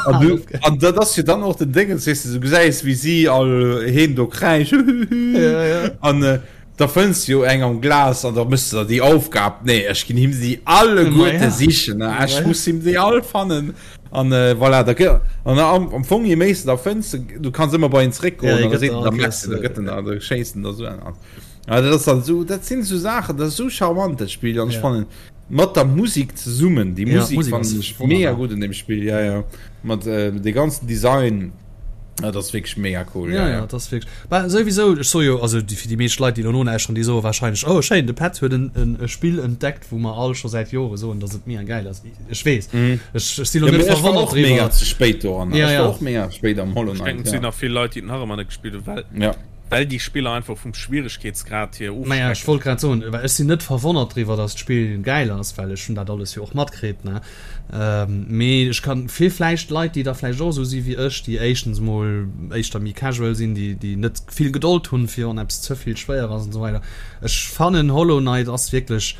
An du, an dat ass jo dann och den Déngens, weess de, du gesäis, wéi si all heem do kräischen. Ja, ja. An äh, da fënns du jo eng am Glas an da mëss du der déi Aufgab, nee, ech ginn him si alleguerte Ma ja. sichen, ne? Ma Ech ja. muss him déi all fannen. An äh, voilà, da gë an am, am Fong, je méi s du da fënns, du kanns ëmmer bei en zréckgoen, Ja, an da gëtt seet der en, da all merkst du, da Kéiers, gëtt en da, da schéisst en der sou en an. Ja, dat ass dann so, dat sinn so Saachen, dat ass so charmant dat Spill an ech Ja. fannen mat der Musik zesummen, déi Ja, Musik d'Musik fannen ass ech mega wonnerbar. gutt an dem Spill, ja ja, mat äh, de ganzen Design, ja, dat ass wierklech mega cool, Ja, ja ja, ja. dat ass wierklech. Bah, souwisou, ech soe jo, also déi, fir déi meescht Leit, déi elo nolauschteren, déi soe warscheinlech, oh schéin, de Petz huet en, en e Spill entdeckt, wou mer all scho säit Jore soen, datt et mega gäil ass. Ech weess, ech, ech si lo Ja, net mee ech war verwonnert och mega driwwer. ze spéit doran, Ja, ech ja. war och mega spéit am Hollow Ech Knight, denken, et sinn ja. nach vill Leit, déi et nach ëmmer net gespillt hunn, well Ja. Well déi Spiller einfach vum Schwieregkeetsgrad hier Maja, ech ofschrecken. wollt grad soen, well ech sinn net verwonnert driwwer, dass d'Spill gäil ass, well ech hunn dat alles jo och matkritt, ne. Mee ech kann fir vläicht Leit, déi da vläicht och esou si wéi ech, déi éischtens mol éischter méi casual sinn, déi déi net vill Gedold hunn, fir wann eppes ze vill schwéier ass an esou weider. Ech fannen Hollow Knight ass wierklech,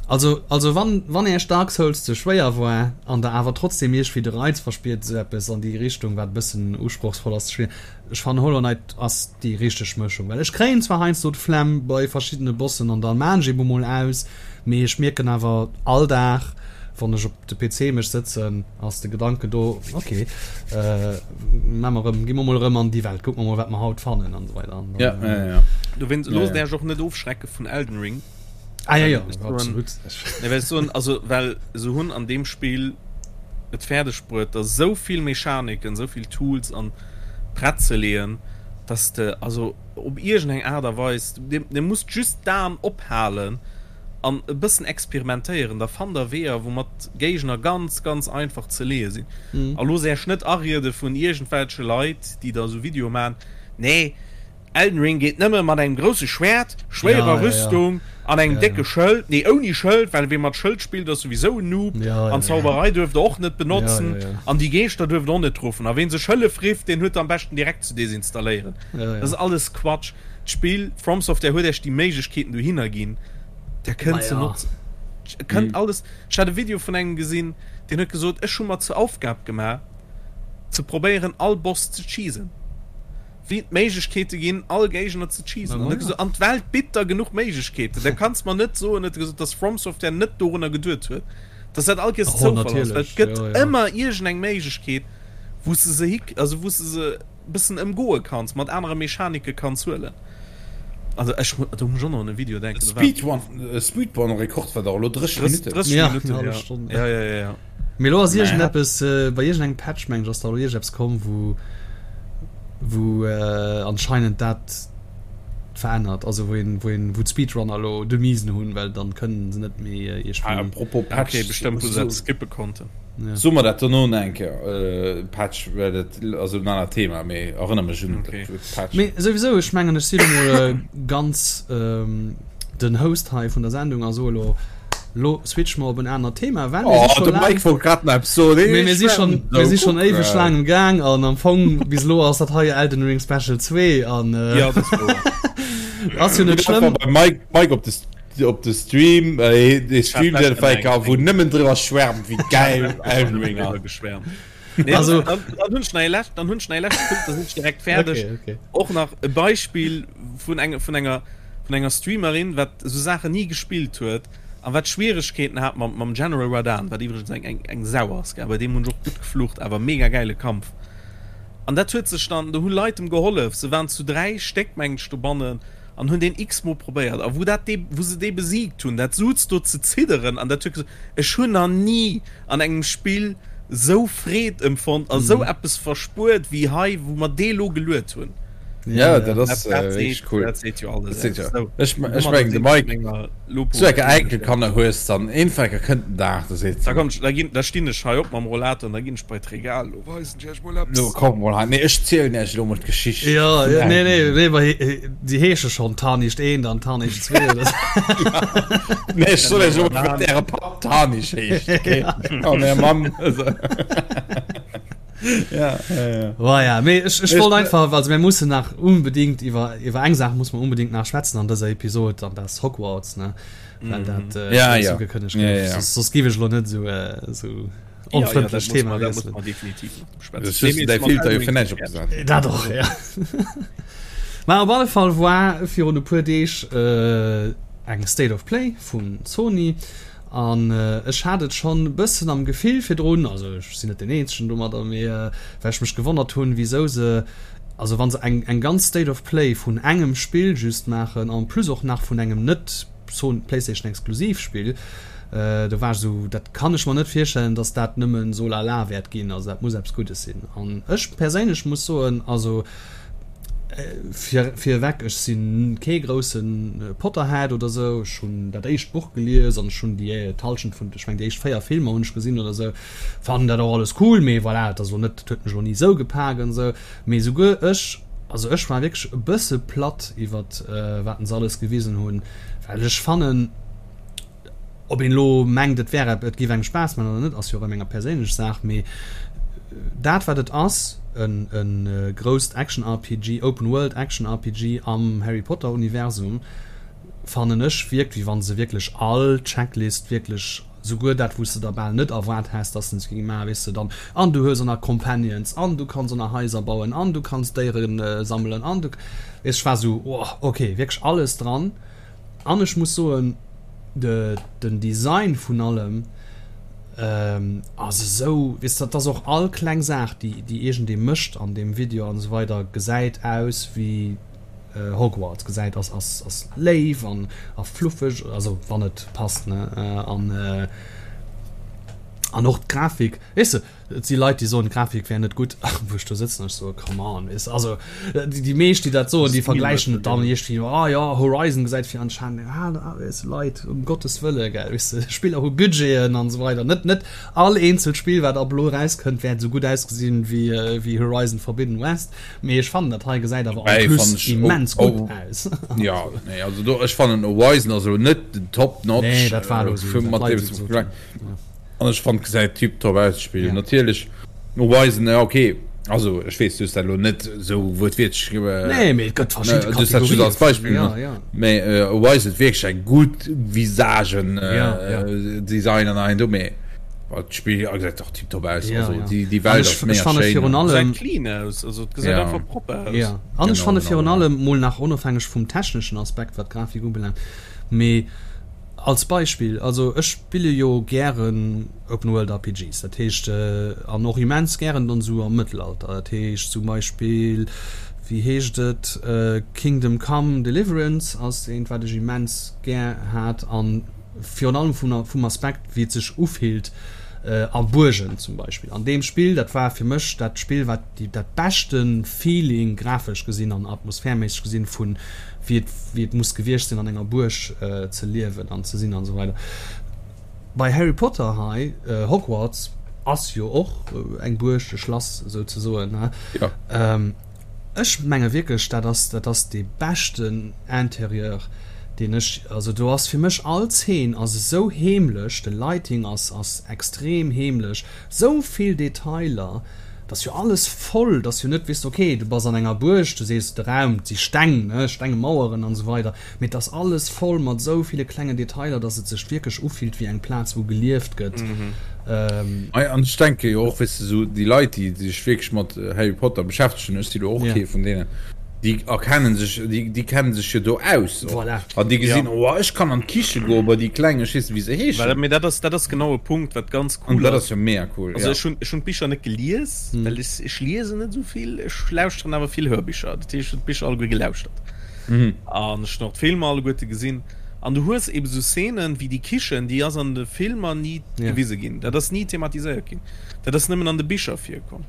also also wann wann Iech Dark Souls ze schwéier war an der awer trotzdem iergwéi de Reiz verspiert, esou eppes an déi Richtung, wat e bëssen usprochsvoll ass ze spillen, Ech fannen Hollow Knight ass déi richteg Mëschung, well ech kréien zwar heiansdo d'Flemm bei verschiddene Bossen an dann maan ech eben mol aus, mee ech mierken awer all Dag. Wann ech op de PC mech sëtzen, ass de Gedanken do, ok, maa mer erëm, gi mer mol erëm an déi Welt, kucke mer mol, wat mer haut fannen an esou weider. An dann, ja, ja, ja. Dowéinst loosst Äech och net ofschrecke vun Elden Ring. Ah, ja, ja, absolut. Nee, well ech soen, also, well se hunn an deem Spill et fäerdeg bruet, der esou vill Mechaniken, esou vill Tools an prett ze leeën, dass de also op iergendeng Aart a Weis, dir, dir musst just d'Aen ophalen, an e bëssen experimentéieren, da fannt der Weeër, woumat Géigner ganz, ganz einfach ze leeë sinn. A loosst Äech net ariede vun iergendwelche Leit, déi da esou Videoe maachen, Nee, Elden Ring geet nëmme mat engem grousse Schwäert, schwéierer Rüstung an engem décke Schëld, nee, ouni Schëld, well wee mat Schëld spillt, ass souwisou en Noob, an Zauberei duerft der och net benotzen, an déi Geeschter duerft der och net ruffen, a ween sech Hëllef rifft, deen huet der am beschten direkt ze desinstalléieren. Dat ass alles Quatsch. D'Spill, From Software huet Iech déi Méiglechkeeten dohinner ginn, der kënnt se notzen. Kënnt mhm. alles. Ech hat e Video vun engem gesinn, deen huet gesot, ech hu mer zur Aufgab gemaach, ze probéieren all Boss ze cheesen. Wéi et Méiglechkeete ginn, all Géigner ze cheesen. An huet gesot, an d'Welt bitt der genuch Méiglechkeeten. Da kanns mer net soen, huet e gesot, dass From Software net dorunner geduet huet, dass dat all Kees oh, Zoufall ass. Well et gëtt ja, ja. ëmmer iergendeng Méiglechkeet, wou s de se hick, also wou s de se bëssen ëmgoe kanns, mat anere Mechanike kanns huelen. Also ech do muss ech och nach un e Video denken. Speedrun, Speedrun Rekord war dach elo 30 Minutten. 30 ja, Minutten, ja. Stonn. Ja, ja, ja, ja. Mee elo ass iergendeppes, äh, bei iergendengem Patch meng ech ass da elo iergendeppes komm, wou wou äh, anscheinend dat verännert, also wou een wou een wou d'Speedrunner elo de Miesen hunn, well dann kënnen se net méi äh, iergendwéi. Ah, apropos Patch, okay, bestëmmt wou se eppes skippe konnten. Ja. So mer dat dono nach eng Kéier, äh, Patch, well dat ass en anert Thema, mee erënner mech un okay. Patch. Mee souwisou, ech mengen, ech si lo mol äh, ganz ähm, den Host hei vun der Sendung a so lo, lo switch mer op en anert Thema, well mir si oh, de Mike wollt grad nach eppes soen. Mee mir si schon, mir si schon éiweg laang um Gaang an am Fong bis lo ass dat hei Elden Ring Special 2 an äh, ja, das ass jo net schlëmm. Mike, Mike op de Op de Stream, de Stream deen fäker wou nëmmen driwwer schwärmt wéi gäil Elden Ring ass. Nee, also, dann, dann hunn ech nach ee lescht, dann hunn ech nach ee leschte Punkt, da sinn ech direkt fäerdeg. Okay, okay. Och nach e Beispill vun enge, vun enger, vun enger Streamerin, wat esou Saachen ni gespillt huet a wat Schwieregkeeten hat mam, mam General Radahn, wat iwwregens eng, eng, eng Sau ass, gell, bei deem hunn ech och gutt geflucht, awer mega gäile Kampf. An dat huet sech dann, do hu Leit em gehollef, se waren zu 3 Stéck, mengen ech, dobannen, an hunn deen x-mol probéiert a wou dat dee wou se dee besiegt hunn, dat suz do ze zidderen an dat huet gesot, ech hunn nach ni an engem Spill sou Freed empfonnt a sou eppes verspuert wéi hei, wou mer dee lo geluet hunn. Ja, dat ass wierklech cool. Dat seet jo alles aus. Jo. Ech mengen de Mike, sou enke Enkelkanner hues, dann eenfäcker kënnt den Dag, da seet se. Da komm, da ginn, da stinn ech hei op mam Rollator an da ginn ech bei d'Regal. Lo weisen ech iech mol eppes. Lo komm mol hei, nee ech zielen iech elo mol d'Geschicht. Ja, ja, nee, nee, nee, ma déi heesche schonn Tarnicht 1 an Tarnicht 2 oder sou. Nee, ech soll iech elo mol, wat äre Papp Tarnisch heescht, okay? An är Mamm. Ja, ja, ja. Oh ja, mee ech, ech wollt einfach, also mir mussen nach unbedingt iwwer, iwwer eng Saach muss mer unbedingt nach schwätzen an dëser Episod, an dat ass Hogwarts, ne? Well dat äh, Ja, ja. ugekënnegt Ja, gouf. ja. Soss, soss géif ech elo net esou, äh, esou onfrëndlech Thema wiesselen. Das ist däi Filter jo fir näischt opgesat. Dat och, ja. Mä op alle Fall war virun e puer Deeg äh, eng State of Play vun Sony. An ech hat et schonn e bëssen am Gefill virdrun, also ech sinn net deen eenzegen domadder, mee well ech mech gewonnert hunn, wisou se, also wa se eng eng ganz State of Play vun engem Spill just maachen, en plus och nach vun engem net Playstation exklusiv Spill, do war ech esou, dat kann ech mer net virstellen, datt dat nëmmen so lala wäert ginn, also dat muss eppes Guddes sinn. An ech perséinlech muss soen, also Fir virewech, ech si kee grousse Potterhead oder sou. Ech hunn dat éischt Buch gelies an ech hunn déi d'Hallschent vun, ech mengen déi éischt 4 Filmer hunn ech gesinn oder sou. Fannen dat och alles cool, mee voilà, et ass elo net, et huet mech elo ni sou gepak an sou. Mee souguer ech, also ech war wierklech e bësse platt iwwert wat se alles gewisen hunn, well ech fannen, Ob een elo mengt, et wär et géif engem Spaass man oder net, ass jo och ëm enger perséinlech Saach, mee dat wat et ass, en e grousst Action-RPG, Open World Action-RPG am Harry Potter Universum, fannen ech wierkt wéi wann se wierklech all Checklist wierklech, souguer dat wou s de der bal net erwaart häss dass se se géinge maachen, weess de dann, an du hues och nach Companions an du kanns och nach Haiser bauen an du kanns Déiere sammelen an du, weess, ech war esou, oh ok, wierklech alles dran. An ech muss soen, de, den Design vun allem. Ass esou, weess de, dat ass och all kleng Saach, déi déi iergendee mécht an deem Video an esou weider, gesäit aus wéi Hogwarts, gesäit ass ass ass léif an a fluffeg, also wann et passt, ne, an an och d'Grafik, weess de. Et si Leit, déi soen, d'Grafik wär net gutt, wou ech do sëtzen an ech soe come on, weess de. Also déi meescht, déi dat soen, déi vergläichen et dann iergendwéi, oh jo, Horizon gesäit fir anscheinend, ah weess de, Leit, um Gottes Wëlle, gell, weess de, Spiller hu Budgeten an esou weider. Net net all eenzelt Spill, wat ab elo erauskënnt, wäert esou gutt ausgesinn wéi wéi Horizon Forbidden West, mee ech fannen, dat hei gesäit awer en plus immens gutt aus. Jo, nee, also do, ech fannen Horizon ass elo net den Top Notch. Nee, dat war elo esou, wat d'Leit esou gesot hunn. An ech fand gesäit tiptop aus d'Spill. Ja. Natierlech Horizon ja okay. Also ech weess du hues dat elo net sou wuertwiertlech äh, Nee, mee et gëtt verschidde du hues dat just als Beispill ja, ja. Mee äh, Horizon huet wierklech eng gutt Visagen äh, ja, ja. Design an ein do mee d'Spill gesäit och tiptop aus. Ja, also, ja. déi, déi Welt ass mega schéin. Virun allem clean aus, also et gesäit ja. einfach propper aus. Ja. An ech fanne virun allem mol nach onofhängeg vum techneschen Aspekt wat d'Grafik ubelaangt, mee Als Beispill, also ech spille jo gären Open World RPGs, dat heescht, an och immens gären dann esou am Mëttelalter, dat heescht zum Beispill, wéi heescht et, Kingdom Come Deliverance ass eent wat ech immens gär hat an virun allem vum vum Aspekt wéi et sech ufillt a Buergen zum Beispill. An deem Spill, dat war fir mech dat Spill wat déi dat beschte Feeling grafesch gesinn an atmosphärméisseg gesinn vun wéi et, wéi et muss gewiescht sinn an enger Buerg ze liewen an ze sinn an esou weider. Bei Harry Potter hei, Hogwarts ass jo och eng Buerg, e Schlass souzesoen, ne? Ja. Ech menge wierklech, dat ass, dat ass dee beschten Interieur, deen ech, also do ass fir mech all Zeen ass esou heemlech, de Lighting ass, ass extrem heemlech, Sou vill Detailer, et ass jo alles voll, et ass jo net, weess de, ok, du bass an enger Buerg, du sees de Raum, et si Steng, ne, stenge Maueren an esou weider, mee et ass alles voll mat esou ville klengen Detailer, dass et sech wierklech ufillt wéi eng Plaz, wou gelieft gëtt. Ei, an ech denke jo och, weess de, esou déi Leit, déi sech wierklech mat Harry Potter beschäftegen, ech si lo och kee vun deenen, Déi erkennen sech, déi, déi kennen sech jo do aus och. Voilà. An déi gesinn, ja. Oh, ech kann an d'Kiche goen, bei déi Kleng, ech weess net, wéi se heeschen. Well, mee dat ass, dat ass genau e Punkt, wat ganz cool ass. An dat ass jo mega cool, Also ja. ech hunn, ech hunn d'Bicher net gelies, hm. well ech, ech liesen net esou vill, ech lauschteren awer vill Hörbicher. Dat heescht, ech hunn d'Bicher alleguer gelauschtert. Mhm. An ech hunn och d'Filmer alleguerte gesinn. An du hues eben esou Szenen wéi déi Kichen, déi ass an de Filmer ni ja. gewise ginn. Dat ass ni thematiséiert ginn. Dat ass nëmmen an de Bicher virkomm.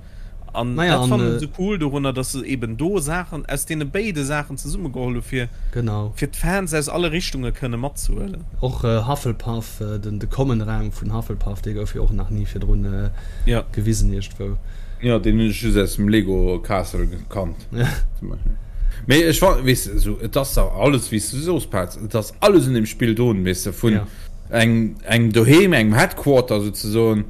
An Naja, dat an, fannen ech esou cool dorunner, dass se eben do Saachen aus deene béide Saachen zesummegeholl hu fir Genau. fir d'Fans aus alle Richtunge kënne matzehuelen. Och Hufflepuff, den de Common Raum vun Hufflepuff, dee gouf jo och nach ni virdrun Ja. gewisen iergendwou. Jo, deen hunn ech just aus dem Lego Castle gekannt. Ja. Zum Beispill. Mee ech fa weess de, esou, et ass dach alles, wéi s du soos, Paz, et ass alles un deem Spill drun, weess de, vun Ja. engem engem Doheem, engem Headquarter souzesoen,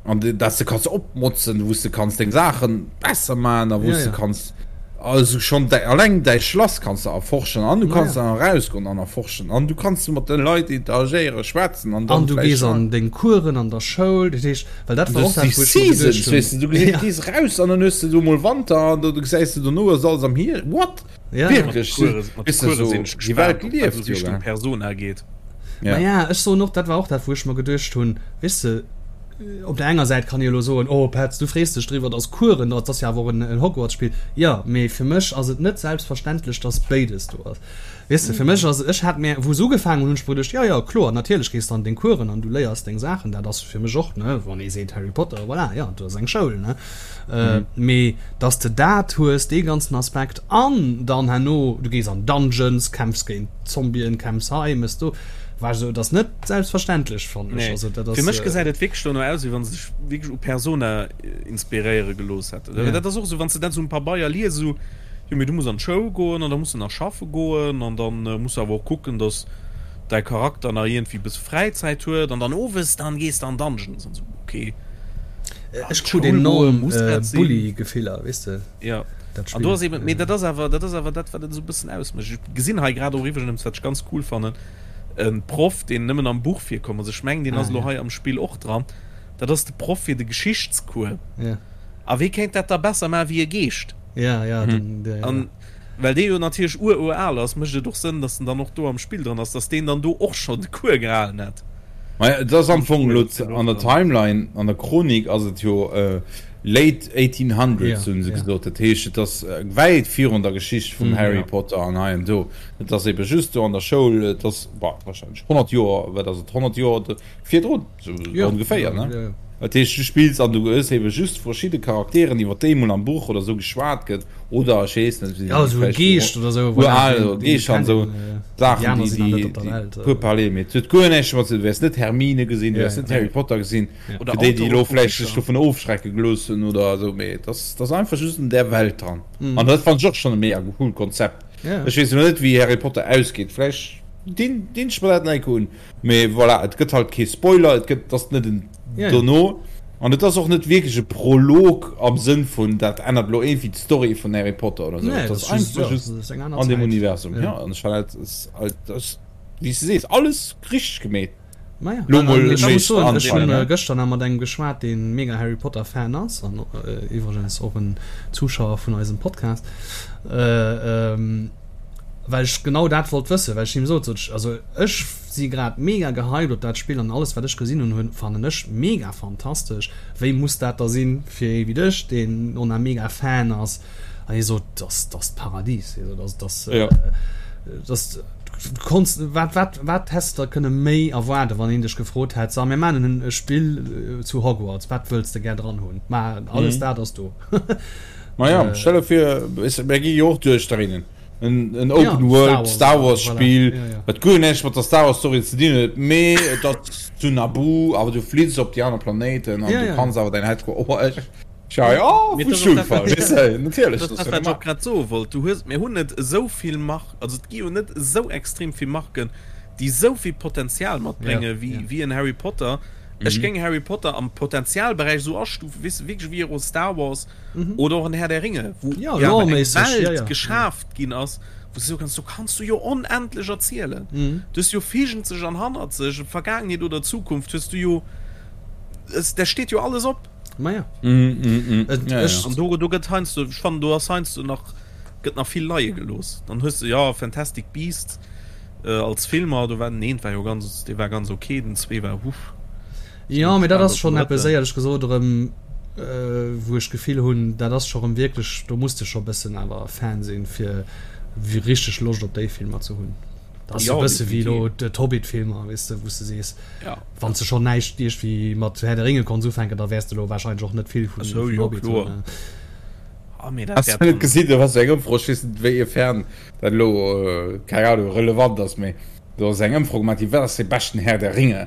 An dass de kanns opmotzen, wou s de kanns deng Saachen besser maachen a wou s de kanns also schonn däi alleng däi Schlass kanns de erforschen an du kanns dann erausgoen an erforschen an du kanns mat de Leit interagéieren, schwätzen an dann An du gees an deng Coursen an der Schoul, dat heescht, well dat war och dat, wou ech mer geduecht hunn. Weess de, du gees gees eraus an dann hues de do mol Wanter an do gesäis de dono ass alles am Hierscht. What? Wierklech? Mat de Coursen sinn ech gespaant, ob dat esou Richtung Persona geet. Maja, ech soen och, dat war och dat, wou ech mer geduecht hunn, weess de, op der enger Säit kann ee elo soen, oh Petz, du frees dech driwwer, dass Coursen do ass, dat ass jo awer och en Hogwarts-Spill. Jo, mee fir mech ass et net selbstverständlech, dass béides do ass. Weess de, fir mech ass, ech hat mir, wou se ugefaangen hunn, hunn ech mer geduecht, jo, jo, kloer, natierlech gees de an deng Coursen an du léiers deng Saachen, dat ass fir mech och, ne, wann ee seet Harry Potter, voilà, jo, do ass eng Schoul, ne. Mee dass de dat hues, dee ganzen Aspekt, an dann herno, du gees an Dungeons, kämpfs géint Zombien, kämpfs hei, mëss do, war ech esou, et ass net selbstverständlech, fannen ech. Nee, Also dat ass. fir mech gesäit et wierklech dono aus, wéi wa se sech wierklech u Persona inspiréiere gelooss hätten. Ja. Dat ass och esou, wann s de dat esou um Pabeier lies, esou, jo mee du muss an d'Schoul goen an da muss de nach schaffe goen an dann muss de awer och kucken, dass däi Charakter nach iergendwéi e bësse Fräizäit huet an dann owes, dann gees de an Dungeons an esou, okay. Ech krut enorm Bulli-Gefiller, weess de. Ja, an do ass eben, mee dat ass awer, dat ass awer dat, wat et esou e bëssen ausmécht. Ech gesinn hei grad och iwwregens, wat ech ganz cool fannen, e Proff, deen nëmmen am Buch virkomm ass. Ech mengen, deen ass elo hei am Spill och dran. Dat ass de Proff fir de Geschichtscours. Ja. A wee kéint dat da besser maachen wéi e Geescht? Ja, ja, den, der, ja. An well dee jo natierlech ur-ur-al ass, mécht et och Sënn, datt en dann och do am Spill dran ass, datt deen dann do och schonn de Cours gehalen hätt. Maja, et ass am Fong elo an der Timeline, an der Chronik ass et jo late 1800s, hunn se gesot. Dat heescht, et ass wäit virun der Geschicht vum Harry Potter an hei an do. Et ass ebe just do an der Schoul, et ass, bah, warscheinlech 100 Joer, wat ass et, 100 Joer virdrun, sou ongeféier, ne? Dat heescht, du spills an du hues ebe just verschidde Charakteren, iwwer déi emol am Buch oder sou geschwat gëtt, oder ech weess net, Ja, esou e Geescht oder sou, voilà, Ural oder Geescht an sou Saachen, déi, déi, déi puer parler, mee et huet guer näischt domat ze dinn. Du wäers net Hermine gesinn, du wäers net Harry Potter gesinn, fir déi, déi elo vläicht sech dovun ofschrecke gelooss hunn oder esou, mee et ass, et ass einfach just an där Welt dran. An dat fannen ech och schonn e mega coolt Konzept. Ech weess elo net, wéi Harry Potter ausgeet, vläicht dinn, dinn ech mer dat nach eng Kéier un. Mee voilà, et gëtt halt kee Spoiler, et gëtt, ass net en dono an et ass och net wierklech e Prolog am Sënn vun dat ännert elo iergendwéi d'Story vun Harry Potter oder sou. Et ass einfach just an deem Universum. Jo, an ech fannen dat ass halt, dat ass wéi s de sees, alles richteg gemeet. Maja, Lo mol ech muss soen, ech hunn gëschter nach mat engem geschwat, dee mega Harry Potter Fan ass an iwwregens och en Zuschauer vun eisem Podcast. Well ech genau dat wollt wëssen, well ech him sot, sot ech, also ech si grad mega gehypt op dat Spill an alles wat ech gesinn hunn, hunn fannen ech mega fantastesch, wéi muss dat da sinn fir ee wéi dech, deen och nach mega Fan ass? An hie sot, dass dass d'Paradies, hie sot, also dass dass du konns, wat wat wat häss de da kënne méi erwaarden, wann een dech gefrot hätt, so mir maachen en e Spill zu Hogwarts, wat wëlls de gär dran hunn? Ma alles dat ass do. Maja, stell der vir, mir gi jo och duerchdréinen. En, en Open ja, World Star Wars, Star Wars Spiel, voilà. ja, ja. wat guer näischt mat der Star Wars Story ze dinn huet, mee et ass zu Naboo, awer du fliss op déi aner Planéiten an ja, du ja. kanns awer däin Headquarter. Oh, ech, ja, ja, vu Schulfall, weess de, natierlech. Dat ass, wat ech och grad soe wollt. Du hues, mir hunn net esou vill Mark, also et gi jo net esou extrem vill Marken, déi esou vill Potenzial matbrénge ja, wéi, ja. wéi en Harry Potter. Mhm. Ech géing Harry Potter am Potenzialberäich esou astufen, weess de, wierklech wéi och Star Wars. mhm. oder och en Herr der Ringe wo ja, ja, eng Welt ja, ja. geschaaft ginn ass wo du kannst du kannst du jo onendlech erzielen mhm. du jo fegent sech an hannert sech Vergangenheet oder Zukunft hues du jo es, der steht jo alles op Ma ja. Mm, mm, mm. Et, ja, ja. An do, do gëtt heinsdo ich fand du ass heinsdo nach gëtt nach vill Leie gelos dann hues du ja Fantastic Beasts äh, als Filmer du war den war jo ganz de war ganz okay den zwee war huff Jo, mee dat ass schonn eppes, éierlech gesot, erëm, wou ech d'Gefill hunn, dat ass scho erëm wierklech, do muss de scho e bëssen awer Fan sinn, fir richteg Loscht op déi Filmer ze hunn. Dat ass e bësse wéi elo d'Hobbit-Filmer, weess de, wou s de sees, wann s de schonn näischt iergendwéi mat Herr der Ringe konns ufänken, da wäers de elo warscheinlech och net vill vun Hobbit hunn. Has de net gesinn, do ass eng Ëmfro, ech weess net wéiefern dat elo, keng Ahnung, relevant ass, mee Do ass eng Ëmfro gemaach ginn, wat ass dee beschten Herr der Ringe?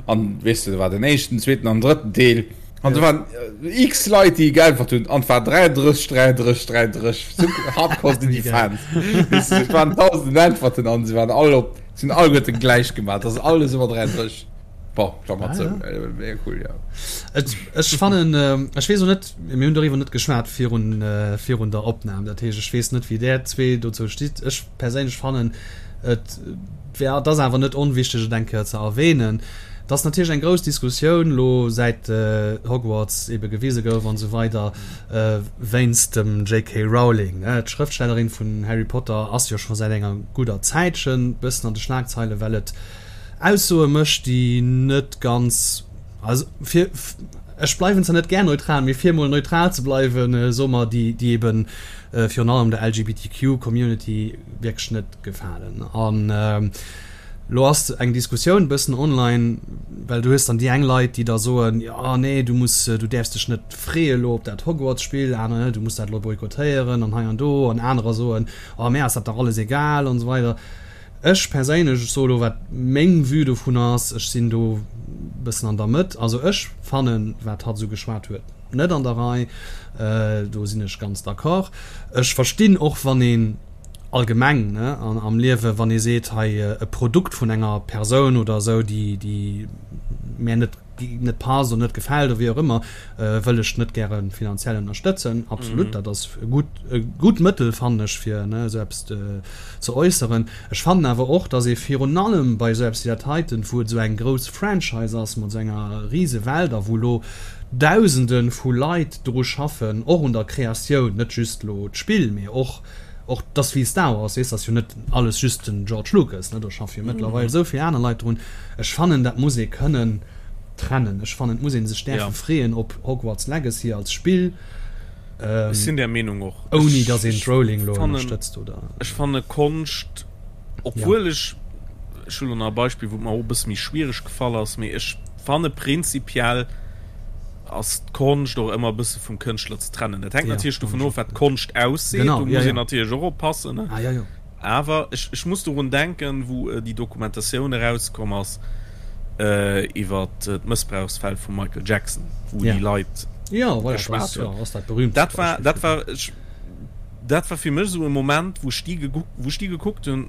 An weess de, do war den éischten, zweeten an drëtten Deel. An do waren x Leit, déi geäntwert hunn, an et war 33, 33, 33. Sou hardcore sinn déi Fans. Weess de, et waren dausenden Äntwerten an se waren all op, se hunn alleguerten gläich gemaach. Et ass alles ëmmer 33. Bon, Klammer zou. Mega cool, jo. Et, ech fannen, ech weess och net, mir hunn doriwwer net geschwat virun, virun der Opnam. Dat heescht, ech weess net, wéi där zwee dozou stitt. Ech perséinlech fannen, Et wär, et ass awer net onwichteg et eng Kéier ze erwähnen, dass natierlech eng grouss Diskussioun elo säit Hogwarts ebe gewise gouf an esou weider wéinst dem JK. Rowling. D'Schrëftstellerin vun Harry Potter ass jo scho säit enger gudder Zäitchen bëssen an de Schlagzeile well et Aussoe mécht déi net ganz, also fir, ech bleiwen zwar net gär neutral, mee fir emol neutral ze bleiwen, soe mer déi déi eben virun allem der LGBTQ Community wierklech net gefalen. An lo ass eng Diskussioun bëssen online, well du hues dann déi eng Leit, déi da soen, jo nee, du muss, du däerfs dech net freeë lo op dat Hogwarts-Spill, aner, du muss dat lo boykottéieren an hei an do, an anerer soen, oh mär ass dat dach alles egal an esou weider. Ech perséinlech, ech soe lo wat meng Vue dovun ass, ech sinn do bëssen an der Mëtt, also ech fannen, wat hatt esou geschwat huet, net an der Rei, do sinn ech ganz d'accord. Ech verstinn och wann een allgemeng ne am Liewe, wann ee seet, hei e Produkt vun enger Persoun oder esou, déi déi mär net net passt oder net gefält oder wéi och ëmmer, wëll ech net gäre finanziell ënnerstëtzen. Absolut, dat ass e gutt e gutt Mëttel fannen ech fir ne esou eppes ze äusseren. Ech fannen awer och, datt ee virun allem bei esou eppes wéi dat heiten, wou et esou eng grouss Franchise ass mat esou enger rise Welt a wou elo Dausende vu Leit dru schaffen, och un der Kreatioun, net just elo d'Spill, mee och. Och dass wéi Star Wars, weess, ass jo net alles just den George Lucas, ne, do schaffe jo mëttlerweil esou vill aner Leit drun. Ech fannen, dat muss ee kënnen trennen. Ech fannen, et muss ee sech däerfe freeën op Hogwarts Legacy als Spill. Ech sinn där Meenung och. Ouni dass een d'Rowling elo ënnerstëtzt, oder? Ech fanne Konscht, obwuel ech, ech hu lo nach e Beispill, wou et mer och e bësse méi schwiereg gefall ass, mee ech fanne prinzipiell, ass d'Konscht och ëmmer e bësse vum Kënschtler ze trennen. Dat hänkt natierlech dovun of, wat d'Konscht ausseet. Do muss een natierlech och oppassen. Awer ech muss dorun denken, wou déi Dokumentatioun erauskomm ass iwwer d'Mëssbrauchsfäll vum Michael Jackson, wou déi Leit geschwat hunn. Dat war, dat war, dat war fir mech esou e Moment, wou ech déi, wou ech déi gekuckt hunn,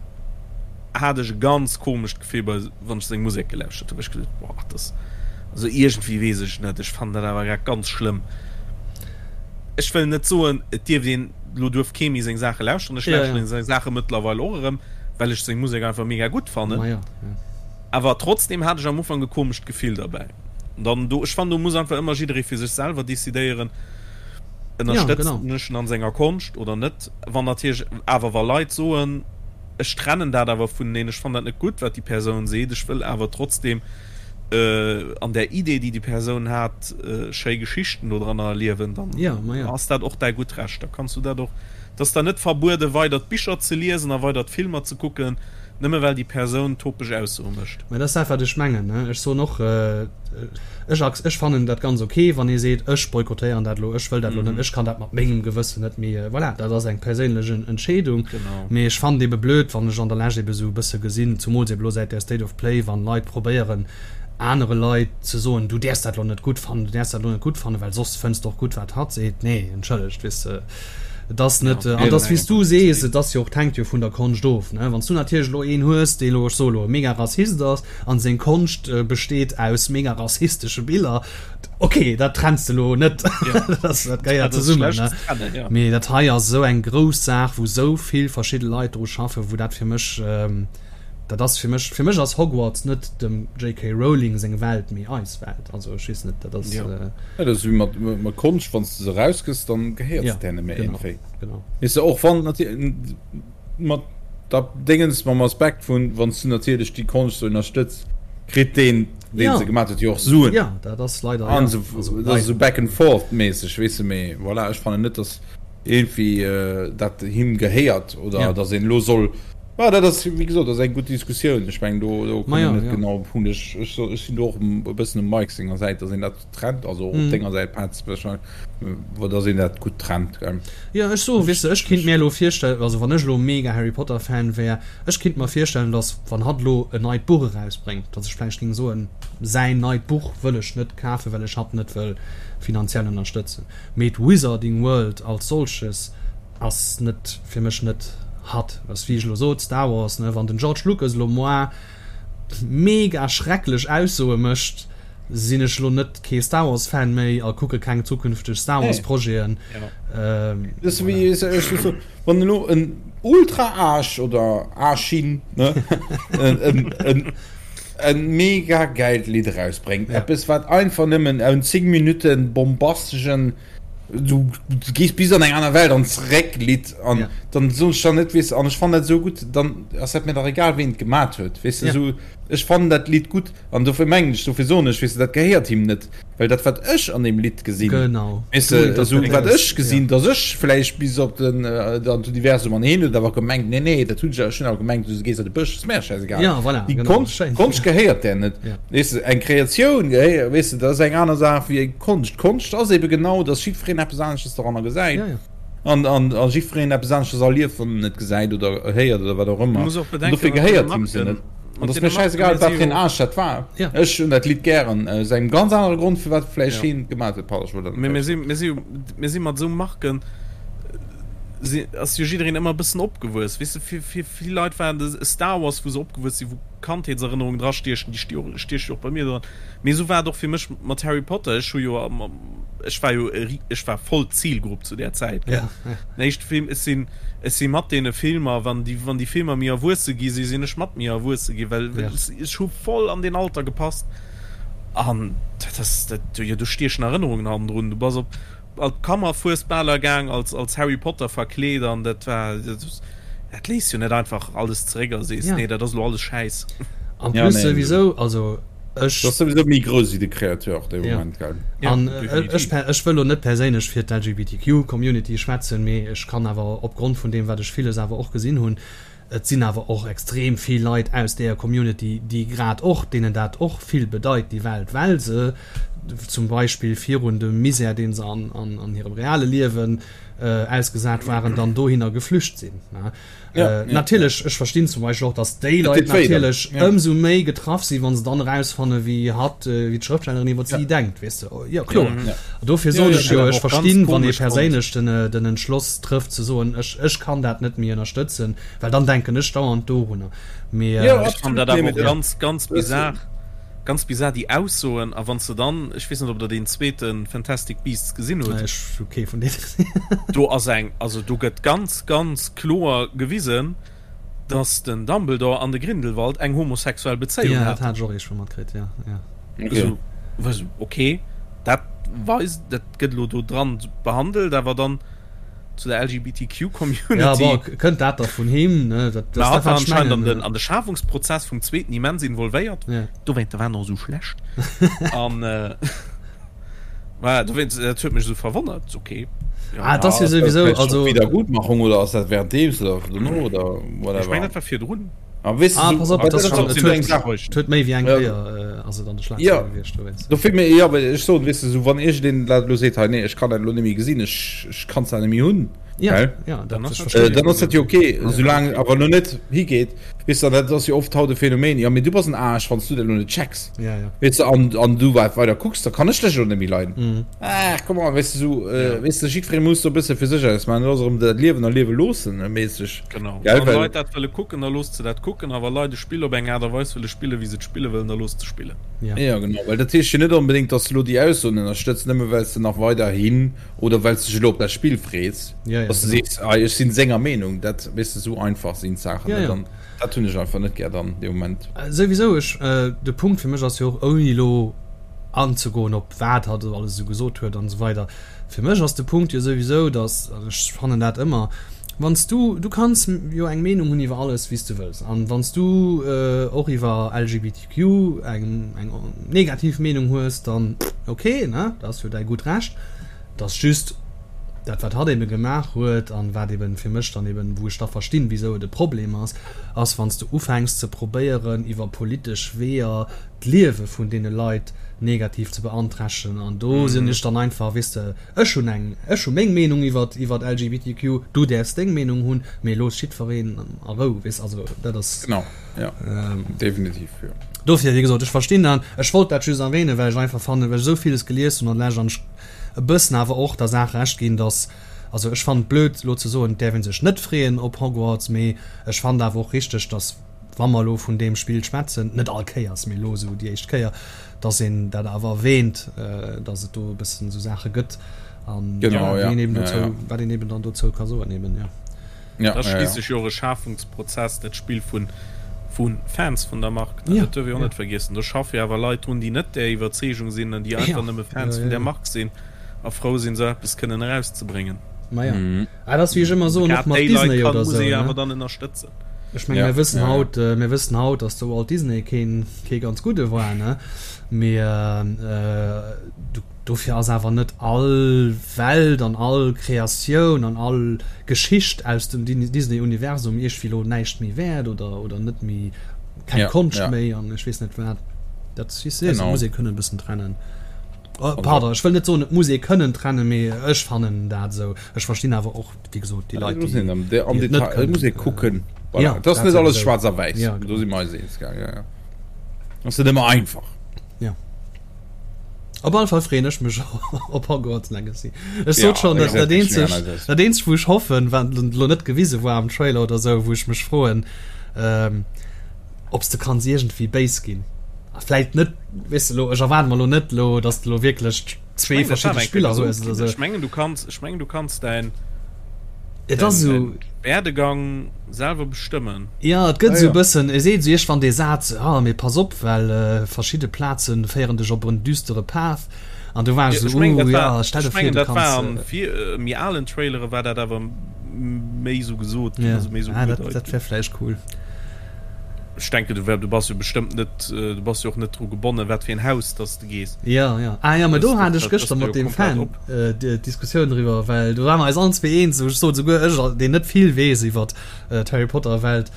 hat ech e ganz komescht Gefill bei wann ech seng Musek gelauschtert hunn, ech geduet, boah, dat also iergendwéi weess ech net, ech fannen dat awer grad ganz schlëmm. Ech wëll net soen, et dierft een, elo duerf kee méi seng Saache lauschteren, ech lauschteren seng Saache mëttlerweil och erëm, well ech seng Musek einfach mega gutt fannen, awer trotzdem hat ech am Ufank e komescht Gefill derbäi. Dann do, ech fannen do muss einfach ëmmer jidderee fir sech selwer decidéieren, ënnerstëtzen ech en an senger Konscht oder net. Wann natierlech awer wa Leit soen, Ech trennen dat awer vuneneen. Ech fannen dat net gutt, wat déi Persoun seet. Ech wëll awer trotzdem an där Idee, déi déi Persoun hat, schéi Geschichten dodranner erliewen. Dann ass dat och däi gutt Recht. Da kanns du dat och. Et ass der net verbueden, weider d'Bicher ze liesen a weider d'Filmer ze kucken, nëmme well déi Persoun topeg Aussoe mécht. Mä dat ass dat, wat ech mengen. Ech soen och, Ech ac ech fannen dat ganz ok, wann ee seet, ech boykottéieren dat elo, ech wëll dat elo net, ech kann dat mat mengem Gewëssen net méi, voilà, dat ass eng perséinlech Entscheedung. Mee ech fannen et ebe blöd, wann ech an der Lescht ebe sou e bësse gesinn, zumools ebe elo säit där State of Play, wann Leit probéieren anere Leit ze soen, du däerfs dat elo net gutt fannen, du däerfs dat elo net gutt fannen, well soss fënns de och gutt wat hatt seet. Nee, entschëllegt, weess de, et ass net, an et ass wéi s du sees, et ass jo och, et hänkt jo vun der Konscht of, ne. Wann s du natierlech elo een hues, dee elo, ech soe elo, e mega Rassist ass, An seng Konscht besteet aus mega rassistesche Biller. Ok, dat trenns de lo net. Dat gehéiert zesummen. Mee dat hei ass esou eng grouss Saach, wou esou vill verschidde Leit dru schaffen, wou dat fir mech, dat ass fir mech, fir mech ass Hogwarts net dem JK. Rowling seng Welt, mee eis Welt. Also ech weess net, dat ass. Jo, dat ass wéi mat Konscht, wann s de se erausgëss, dann gehéiert se der net méi iergendwéi. Weess de, och wann natierlech. Mat der Déngens, mam Aspekt vun, wann s du natierlech déi Konscht sou ënnerstëtz, kritt deen, deen ja. se gemaat huet, jo och Suen. Ja, dat ass leider, ja. An also, dat ass sou back and forth mäßeg, weess de, mee voilà, ech fannen net, dass irgendwie äh, dat him gehéiert oder ja. dass een lo soll Ja, dat ass wéi gesot, dat ass eng gutt Diskussioun. Ech meng do, do kommen ja, net ja. genau op Punkt. Ech, ech, ech sinn do och e bëssen um Mike senger Säit, dass een dat trennt, also op denger Säit Petz, wou dass een dat gutt trennt, gell. Jo, ech soen, weess de, ech kinnt mir elo virstellen, also wann ech elo mega Harry Potter Fan wär, ech kinnt mer virstellen, dass wann hatt elo en neit Buch erausbréngt, dass ech vläicht géing soen, säin neit Buch wëll ech net kafen, well ech hatt net wëll finanziell ënnerstëtzen. Mee d'Wizarding World als solches ass net, fir mech net hatt. Ass wéi ech elo sot, Star Wars, ne, wann den George Lucas elo moar mega schrecklech Aussoe mécht, sinn ech lo net kee Star Wars Fan méi a kucke keng zukünfteg Star Wars Projeten. Wann elo en Ultra Aasch oder Aaschin en mega gäilt Lidd erausbréngt, eppes wat einfach nëmmen en 10 Minutten bombastegen du gees bis an eng aner Welt an zeréck Lidd an ja. dann soen ech dann net weess an ech fannen dat esou gutt, dann ass dat mir dach egal ween et gemat huet weess de ja. esou ech fannen dat Lidd gutt an dofir mengen ech dofir soen ech weess de dat gehéiert him net well dat wat ech an deem Lidd gesinn genau weess de esou wat ech gesinn ja. dass ech vläicht bis op den äh, an d'Universum an heen huet awer gemengt nee nee dat hunn ech ech hunn awer gemengt du gees an de Bësch ass mir scheißegal ja, voilà, déi genau. Konscht Konscht gehéiert där net ja. Weess de, eng Kreatioun, weess de, dat ass eng aner Saach wéi eng Konscht. Konscht ass ebe genau, datt jiddwereen eppes anesches doranner gesäit. Ja, ja. An, an, a jiddwereen eppes anesches erlieft, wann en et gesäit oder héiert oder wat och ëmmer. Du muss och bedenken, dofir gehéiert him se net. An ass mir schäisegal, wat fir en Aarsch dat war. Ja. Ech hunn dat Lidd gären, aus engem ganz anere Grond, firwat vläicht ja. hien et gemaach huet. Pardon, ech wollt dat net. Mir si, mir si, mir si mat esou Marken, si, ass jo jiddereen ëmmer e bëssen opgewuess. Weess de, fir, fir vill Leit war de Star Wars, wou se opgewuess sinn, wou Kandheetserënnerungen drastiechen, déi stieche jo och bei mir dran. Mee esou war et och fir mech mat Harry Potter. Ech hu jo, ech war jo, ech war voll d'Zilgrupp zu där Zäit, gell. Den éischte Film, ech sinn, ech si mat deene Filmer, wann déi, wann déi Filmer méi erwuesse gi si, sinn ech mat méi erwuesse gi, well ech hu voll an deen Alter gepasst. An dat ass, dat, jo, do stiechen Erënnerungen hannendrun. Du bass op. An d'Kammerfuesbaler gaang als als Harry Potter verkleet an dat war dat léisst jo net einfach alles zeréck a sees nee dat ass elo alles Schäiss. An plus souwisou, also ech. Dat ass souwisou méi grouss wéi de Créateur dee Moment, gell? An ech ech wëll elo net perséinlech fir d'LGBTQ Community schwätzen, mee ech kann awer opgrond vun deem wat ech villes awer och gesinn hunn, Et sinn awer och extrem vill Leit aus deeër Community, déi grad och, deenen dat och vill bedeit, déi Welt, well se zum Beispill virun dem Misär, dee se an hirem reale Liewen ausgesat waren, dann dohinner geflücht sinn. Natierlech, ech verstinn zum Beispill och, datt déi Leit natierlech ëmsou méi getraff sinn, wa se dann erausfanne wéi hatt, wéi d'Schrëftstellerin iwwer si denkt, weess de. Jo, kloer. Dofir sot ech jo, ech verstinn, wann ee perséinlech den Entschloss trëfft ze soen, ech, ech kann dat net méi ënnerstëtzen, well dann denken ech dauernd dorunner. Mee ja, ech fannen dat awer och ganz, ganz bizar, ganz bizar déi Aussoen. A wann s de dann, ech weess net, ob Der deen zweete Fantastic Beasts gesinn hutt. Ech hu kee vun deene gesinn. Do ass eng, also do gëtt ganz, ganz kloer gewisen, dass den Dumbledore an de Grindelwald eng homosexuell Bezéiung haten. Ja, dat hat ech och eescht matkritt, ja, ja. Okay. Also, okay, dat weist, dat gëtt elo do dran behandelt, awer dann zu der LGBTQ-Community. Ja, bon, kënnt dat da vun him, ne? Dat, dat, dat war anscheinend an den, an de Schafungsprozess vum zweeten immens involvéiert. Ja. Dowéint, war en och esou schlecht. An, äh, Voilà, dowéinst, dat huet mech esou verwonnert. Okay. Ja. Ah, das ja sowieso, also Wiedergutmachung oder ass dat währenddeems oder dono oder whatever? Ech mengen, dat war virdrun. Ah, weißt ah, pass op, das schon, et huet méi wéi eng Kéier ass et an de Schlagzeilen gewiescht dowéinst. Dofir mir, ja, well ech soen, weess de, sou wann iergendeen dat elo seet, hei nee, ech kann dat elo net méi gesinn, ech, ech kann dat net méi hunn, Ja, gell? ja, dat Dann ass ech dat verstinn. Äh, dann ass dat jo okay, soulaang awer elo net higeet, weess de, an dat ass jo oft haut e Phänomen, jo, mee du bass en Aarsch, wann s du dat elo net checks. Ja, ja. Weess de, an, an du wat weider kucks, da kann ech dech elo net méi leiden. Mhm. Ah, come on, weess de, sou, äh, weess de, jiddweree muss do e bësse fir sech ausmaachen, dat ass erëm dat Liewen a liewe loossen, méisseg. Genau. Gell, Wann well. Leit dat wëlle kucken, da loosst se dat kucken, a wa Leit e Spill op eng Aart a Weis wëlle spillen, wéi se et spille wëllen, da loosst se spillen. Ja. Ja, genau, well dat heescht jo net onbedéngt, dass de elo déi Aussoen ënnerstëtz, nëmme well s de nach weiderhin oder well s de dech elo op dat Spill frees, Ja, ja, dass de genau. sees, ah, ech sinn senger Meenung. Dat, weess de, esou einfach sinn d'Saachen Ja, net. ja. An dat hunn ech einfach net gär dann dee Moment. Souwisou, ech, de Punkt fir mech ass jo och, ouni elo anzegoen op wat hatt elo alles esou gesot huet an esou weider, Fir mech ass de Punkt jo souwisou, dass, an ech fannen dat ëmmer, wann s du, du kanns jo eng Meenung hunn iwwer alles wéi s du wëlls, an wann s du och iwwer LGBTQ eng eng negativ Meenung hues, dann ok, ne, dat ass jo däi gutt Recht. Et ass just dat wat hatt ebe gemaach huet an wat eben fir mech dann eben, wou ech da verstinn, wisou et e Problem ass, ass wann s du ufänks ze probéieren iwwer politesch Weeër d'Liewe vun deene Leit negativ ze beanträchtegen an do sinn ech dann einfach, weess de, ech hunn eng, ech hu meng Meenung iwwer iwwer LGBTQ, du däerfs deng Meenung hunn, mee looss jiddwereen a Rou, weess, also dat ass. Genau, jo, definitiv, jo. Dofir, wéi gesot, ech verstinn dat, ech wollt dat just erwähnen, well ech einfach fannen, well ech esou villes gelies hunn an lech an ech e bëssen awer och der Saach Recht ginn, dass, also ech fannen et blöd elo ze soen, et däerf ee sech net freeën op Hogwarts, mee ech fannen awer och richteg, dass, wa mer elo vun deem Spill schwätzen, net all Kéiers, mee elo esou déi éischt Kéier, dass een dat awer erwähnt, dass et do e bëssen esou Saache gëtt an genau, ja, ja, een eben ja, dozou, ja. wat een eben dann dozou ka soen eben, ja. Ja, Dat ass ja, ja. schliisslech jo och e Schafungsprozess, dat Spill vu vu Fans vun der Mark, ne? Ja, Dat duerf ee och ja. net vergiessen. Do schaffe jo awer Leit drun, déi net där Iwwerzeegung sinn an déi einfach Ja, nëmme Fans ja, vun ja, där ja. Mark sinn a frou sinn, esou eppes kënnen erauszebréngen. Ma ja. Mhm. Ah, dat ass wéi ech ëmmer soen, och Grad mat déi Leit Disney kann, oder muss esou, ee jo ne? awer dann ënnerstëtzen. Ech menge Ja, mir wëssen ja, ja. haut, mir wëssen haut, datt de Walt Disney keen, kee ganz gudde war, ne? Mee du, dofir ass awer net all Welt an all Kreatioun an all Geschicht aus dem Disney-Universum iergwéi lo näischt méi wäert oder, oder net méi, keng Ja, Konscht ja. méi an ech weess net wat. Dat, weess de, Genau. muss ee kënnen e bëssen trennen. Oh, pardon, ech wëll net soen, et muss ee kënnen trennen, mee ech fannen dat esou. Ech verstinn awer och, wéi gesot, déi Leit, Muss déi, een am, de, am déi et net Detail, muss ee kënnen. kucken. Voilà. Ja, Et ass dat net alles souwisou. schwaarz a wäiss. Ja, Do genau. si mer eis eens, gell? Ja, ja. Ass net ëmmer einfach. Ja. Op alle Fall freeën ech mech op Hogwarts Legacy. Ech Ja, sot schon, dat, dat exact, ech eenzeg, meng eis. dat eenzeg, wou ech hoffen, wat lo net gewise war am Trailer oder sou, wou ech mech froen, ähm, ob s de kanns iergendwéi béis ginn. A vläit net, weess de lo, ech erwaarde mer lo net lo, dass de lo wierklech zwee verschidde Spiller hues oder sou. Ech mengen du kanns, ech mengen du kanns däin, Et ass däin, esou. däin Werdegang selwer bestëmmen. Jo, et gëtt Ah esou e ja. bëssen, e seet esou iergendwann dee Saz, ah mee pass op, well verschidde Plaze féieren dech op en düstere Path. An du war ech esou, uh, ja, stell der vir, du kanns. Dat war an méi alen Trailere war dat awer méi esou gesot ginn, also méi esou ugedeit ginn. Dat wär vläicht cool. Ech denken, du du bass jo bestëmmt net, du bass jo och net dru gebonnen, wat fir en Haus dass de gees. Ja, ja. Ah ja, mä do hat ech gëschter mat deem Fan d'Diskussioun driwwer, well do ware mer eis allen zwee eens, ech sot esouguer ech, deen net vill weess iwwer d'Harry Potter Welt,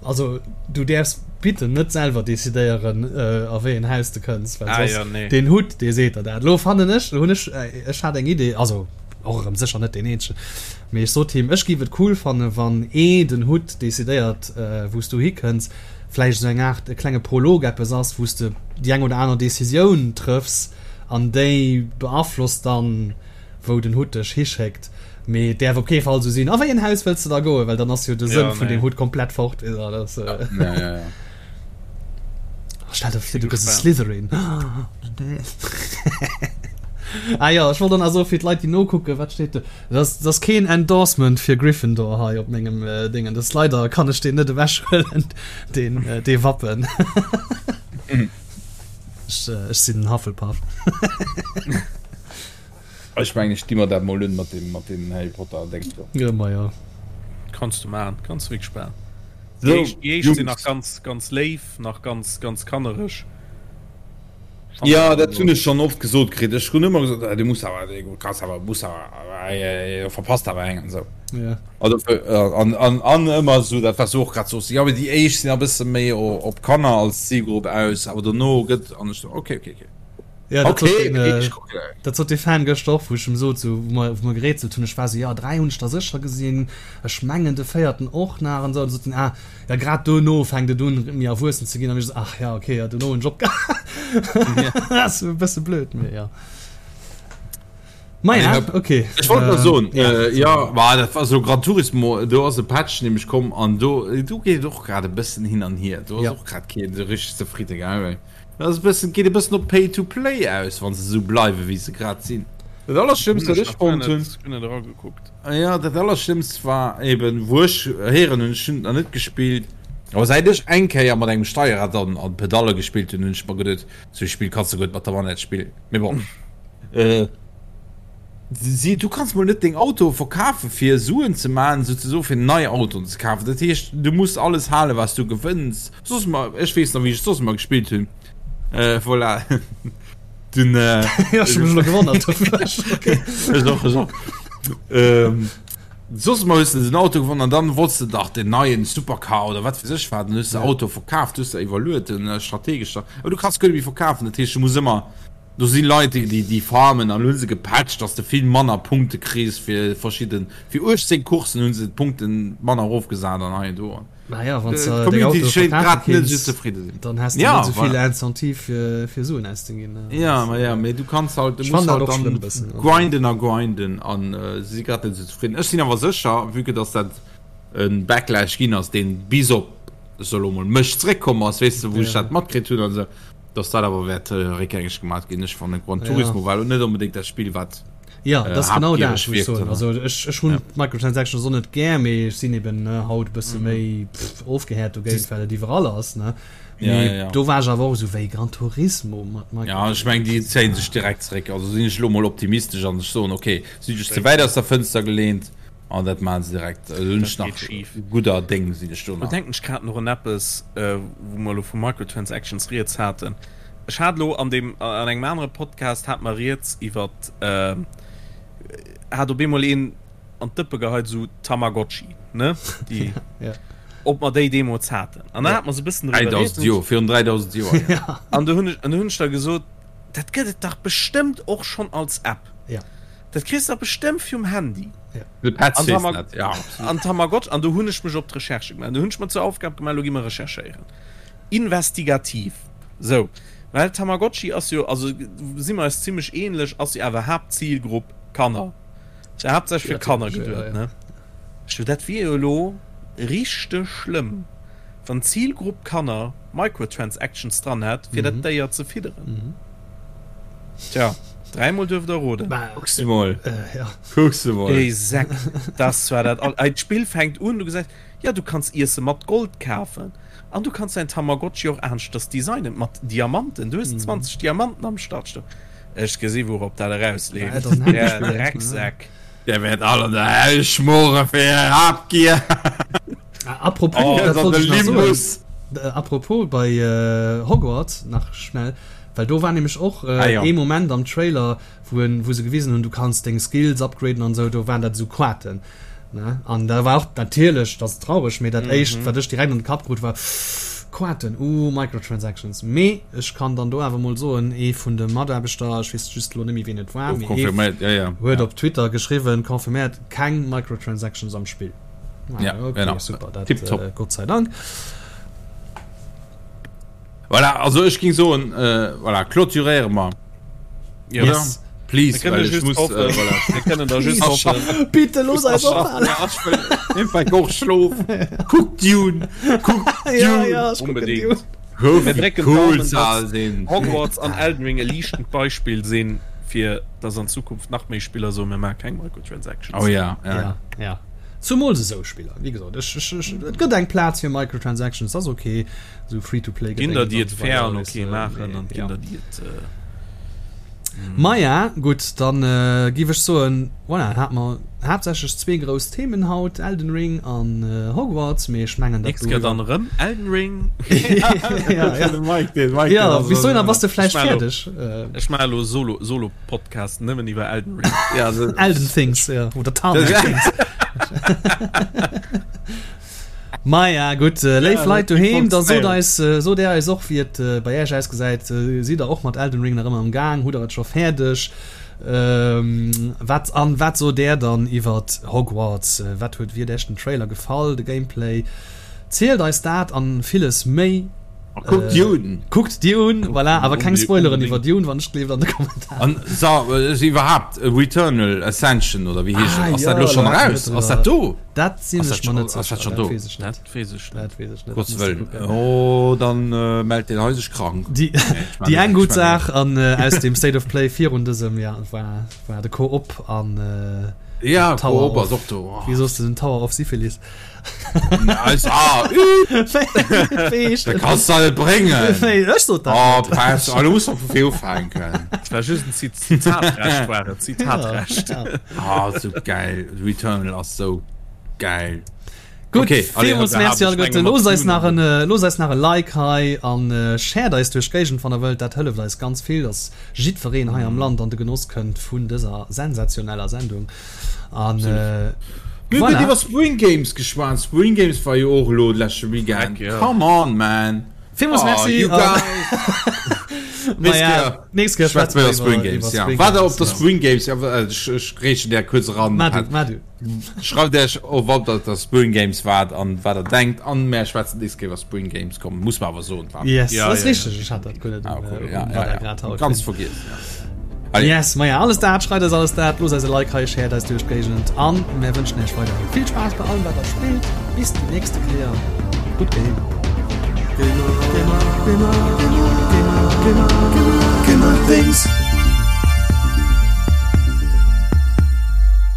Also du däerfs bitte net selwer decidéieren a wéi en Haus de kënns, well ah, ja, nee. den Hutt dee seet der dat. Lo fannen ech, hunn ech äh, ech hat eng Idee, also och erëm sécher net deen eenzegen, mee ech sot him, ech giff et cool fanne wann ee den Hutt decidéiert äh, wou s du hikënns, vläicht esou eng Aart e klenge Prolog eppes ass, wou s de déi eng oder aner Decisioun trëffs an déi beaflosst dann wou den Hutt dech hischéckt, mee et däerf op kee Fall esou sinn, a wéi en Haus wëlls de da goen, well dann ass jo de Sënn vun deem Hutt komplett fort. Stell der vir, du gëss e Slytherin. Ah jo, ech wollt och nach soen, fir d'Leit, déi nokucken, wat steet do? Dat ass, dat ass keen Endorsement fir Gryffindor hei op mengem Déngen. Dat ass leider, kann ech deen net ewechhuelen, deen, dee Wappen. Ech, ech sinn en Hufflepuff. Ech mengen ech di mer dat mol un mat dem mat dem Harry Potter Déngs do. Jo ma jo. Kanns du maachen, kanns du wierklech maachen. Déi éischt déi éischt sinn nach ganz ganz léif, nach ganz ganz kannereg. Jo dat hunn ech schonn oft gesot kritt. Ech hunn ëmmer gesot, du muss awer, du kanns awer, muss awer, verpasst awer eng an esou. Ja. Also an an an ëmmer esou dat wat s du och grad soos, jo mee déi éischt sinn a bësse méi op Kanner als Zilgrupp aus, awer dono gëtt an ech sou okay okay okay. Ja, dat sot den, äh, dat sot de Fan gëschter och, wou ech em sot, sou, wou mer, wou mer gerätselt hunn, ech war sou, ja, 3 hunn ech der sécher gesinn, ech mengen de véierten och nach an sou, an sot en, ah, ja, grad dono fänkt et un, méi erwuessen ze ginn, an ech sou, ach ja, okay, ja, dono hunn ech opgehal. Ass e bësse blöd, mee ja. Ma ja, okay. Ech wollt nach soen, ja, ja, ma dat war sou Gran Turismo, do ass e Patch nämlech komm an do, do geet et och grad e bëssen hin an hier, do ass och grad keen sou richteg zefridde, gell? Dat ass e bëssen, geet e bëssen op Pay to Play aus, wann se esou bleiwe wéi se grad sinn. Dat allerschlimmst wat ech fonnt hunn, jo dat allerschlimmst war eben wou ech héieren hunn, ech hunn et nach net gespillt, awer säit ech eng Kéier mat engem Steierrad an an Pedalle gespillt hunn, hunn ech mer geduet, sou e Spill kanns de guer net mat der Manette spillen. Mee bon. Si, du kanns mol net deng Autoe verkafe fir Suen ze maachen, souzesoe fir nei Autoen ze kafen. Dat heescht, du muss alles halen, wat s du gewënns. Soss mer, ech weess nach, wéi ech soss ëmmer gespillt hunn. Äh, voilà. Dunn, äh, Ja, ech hu mech elo gewonnert. Ech och, ech och. Ähm, soss ëmmer hues de den Auto gewonnen an dann wollts de dach den neien Supercar oder wat weess ech wat, dann hues de Auto verkaaft, hues der iwwerluet, den strategesch da. Awer du kanns guer net méi verkafen, dat heescht, du muss ëmmer Do si Leit déi déi farmen an hu se gepatcht dass de vill manner Punkte kriss fir verschidden, fir 18 Coursen hu se d'Punkten manner erofgesat an hei an do. Naja, wann s de deng D'Community Autoe schéint verkafe grad net esou kinns, zefridde sinn. dann häss de Ja, net esou vill voilà. Incentive fir fir Suen auszeginn. Ja, ma ja, mee du kanns halt, du Ech muss fannen dat halt och dann schlëmm e bëssen. Also. grinden a grinden an se si grad net esou zefridden. Ech sinn awer sécher, vue que dass dat e Backlash ginn ass, deen bis op, ech soe lo mol, mech zréckkomm ass, weess de, wou ech Ja. dat matkritt hunn an esou, Dass dat awer wäert réckgängeg gemaat ginn. Ech fannen Gran Ja. Turismo war elo net onbedéngt dat Spill wat Ja, dat ass genau dat, habgiereg wou ech wierkt, soen. oder? Also ech, ech hunn Ja. d'Microtransactions och net gär, mee ech sinn eben ne, haut e bësse méi pff, ofgehäert dogéint, well et iwwerall ass, ne. Ja, Mee ja, ja. do war ech awer och esou wéi Gran Turismo mat Ja, ech meng déi zéien sech direkt zeréck. Also sinn ech elo mol optimistesch an ech soen okay, si sech ze wäit aus der Fënster geleent an dat maachen se direkt. Also hunn ech Dat nach geet schif. gudder Déng sinn ech do Do nach. denken ech grad nach un eppes, wou mer elo vu Microtransactions rieds haten. Ech hat elo an deem, an engem anere Podcast hate mer rieds iwwert, hat op eemol een an d'Dëppe geheit, esou Tamagotchi, ne, déi, Ja. ob mer déi deemools haten. An da Ja. hate mer esou e bëssen driwwer 3000 rieds. Joer, virun 3000 Joer, Ja. An do hunn ech, an do hunn ech da gesot, dat gëtt et dach bestëmmt och schonn als App. Ja. Dat kriss de bestëmmt virum Handy. Ja. De Petz An weess Tamag dat, ja, absolut. an Tamagotchi, an do hunn ech mech op d'Recherche gemaach. Do hunn ech mer zur Aufgab gemaach, elo gi mer recherchéieren. Investigativ. Sou. Well Tamagotchi ass jo, also si mer eis zimmlech ähnlech, ass jo awer Haaptzilgrupp Kanner. Ass jo haaptsächlech fir Kanner Ja, geduet, ja. ne? Ech sou, dat wier jo elo richteg schlëmm, wann d'Zilgrupp Kanner Microtransactions dran hätt, fir dat Déier ze fidderen. Tja, dräimol duerft der roden. Kucks de mol. Äh, ja. Kucks de mol. Déi Säck, das war dat all. D'Spill fänkt un, du gesäis, ja, du kanns Iesse mat Gold kafen an du kanns däin Tamagotchi och aneschters designen, mat Diamanten. Du hues 20 Diamanten am Startstock. Ech gesi wourop dat erausleeft. Är Drecksäck. Dir wäert all an der Hell schmoren fir är Habgier. Apropos, oh, dat wollt ech nach soen. Apropos bei Hogwarts nach schnell, well do war nämlech och ah, ja. ee Moment am Trailer, wou en, wou se gewisen hunn, du kanns deng Skills upgraden an esou, do waren dat esou Quaten. Ne? An da war och natierlech, dat ass traureg, mee dat éischt, mhm. wat ech direkt an de Kapp krut, war Quaten, uh, Microtransactions. Mee ech kann dann do awer mol soen, ee vun de Mataarbechter, ech weess just lo net méi ween et war, mee ee ja, ja. huet op Twitter geschriwwen, confirméiert, keng Microtransactions am Spill. Ah, ja, okay, genau. super, dat, Tipptopp. äh, Gott sei Dank. Voilà, also ech ging soen, äh, voilà, clôturéiere mer. Ja. Yes. Please, Wir well kënnen ech just muss, hoffen, äh, voilà. wir kënnen da just hoffen. Bitte los eis ophalen. Ja, ech wëll einfach och schlofen. Kuck Dune, kuck Dune. Ja, ja, ech kucken Unbedingt. Dune. Hör, Mir wie drécken cool d'Daumen, se all dass sinn. Hogwarts an Elden Ring e liichtend Beispill sinn, fir dass an Zukunft nach méi Spiller soen, mir maache keng Microtransactions. Oh ja, ja. Ja, ja. Zumools esou Spiller. Wéi gesot, ech, ech, ech, et gëtt eng Plaz fir Microtransactions, dat ass ok. Esou Free-to-play Ginn der, déi et Gedéngens an esou fair weider, an weess ok de, maachen mee an ginn ja. der, déi et. Maja, gutt, dann giff ech soen, voilà, hate mer haaptsächlech zwee grouss Themen haut, Elden Ring an Hogwarts, mee ech mengen dat Nächst Kéier dann erëm Elden Ring. Ja, ja. De Mike, den Mike, Ja, den ass bis dohinner erëm- bass de vläicht Ech maache lo- fäerdeg. Ech maache lo Solo, Solo-Podcast nëmmen iwwer Elden Ring. Ja, also, Elden Things, ja, oder Tarmac Things. Maja gutt, léif Leit doheem, da sot eis, sot är eis och wéi et bei äech ausgesäit. Sidd der och mat Elden Ring nach ëmmer am Gaang? Hutt der et scho fäerdeg? Wat an wat sot där dann iwwert Hogwarts? Wat huet wéi huet äech den Trailer gefall, de Gameplay? Zielt eis dat an villes méi. A kuckt Dune! Kuckt Dune, voilà, awer keng Spoileren iwwer Dune, wann ech gleeft an de Kommentaren. An sa iwwerhaapt Returnal Ascension oder wéi heescht et? Ass dat Ah elo jo, schonn do hate eraus? mer Ass dat driwwer. do? Dat sinn Ass ech dat mer schon, net ass dat sécher, schon dat do? weess ech net. Dat weess ech net. Dat weess ech net, Gottes muss de Wëllen. kucken. Oh, dann äh, mellt den hei sech krank. Déi, Nee, ech déi man eng ech gutt man Saach an äh, aus dem State of Play virun dësem Jahr war, war de Co-op an äh, Ja, Tower Koop of, ass och do. Oh. wéi soss du den Tower of Syphilis? Eis, ah, ü, Wéi heescht da en? kannst du net bréngen. Wéi, ech sot dat Oh, net. Pass, oh, du musst doch vu vir ufänken. Dat war just en Zit Zitatrecht war et, Zitatrecht. Ja, ja. Ah, so geil. Returnal ass so geil. Gutt, Okay, allez, villmools da Merci hab ech alleguerten. menge Loosst mat eis nach Dune en, loosst eis nach e Like hei an shared eis duerch d'Géigend wann der wëllt. Dat hëlleft eis ganz vill, dass jiddwereen hei am Land an de Genoss kënnt vun dëser sensationeller Sendung. An Mir hunn voilà. net iwwer Spring Games geschwat. Spring Games war jo och elo de leschte Weekend. Heck, ja. Come on, man. Villmools Oh, Merci. you an- guys. Nächst Maja, Kéier nächst Kéier schwätze schwätze mer mer iwwer Spring iwwer Games. Ja. Spring War der op Games, der ja. Spring Games? Ja, äh, ech, ech grätschen där kuerz eran. Mar du, mar du. Schreift Iech of, ob der op der Spring Games waart an wat der denkt. An mär schwätzen nächst Kéier iwwer Spring Games. Komm, muss mer awer soen, wa? Yes, Ja, dat ass ja, richteg. ja. Ech hat dat guer net Ah, um, cool. äh, Ja, um ja, Radar ja. grad haut. Ganz vergiess. Ja. Allez. Yes, maja, alles dat, schreift eis alles dat, loosst eis e Like hei, shared eis duerch d'Géigend an mär wënschen iech weiderhi vill Spaass bei allem wat der spillt. Bis déi nächste Kéier, gutt Game! Gamer, Gamer, Gamer, Gamer, Gamer, Gamer, Gamer, Gamer Things.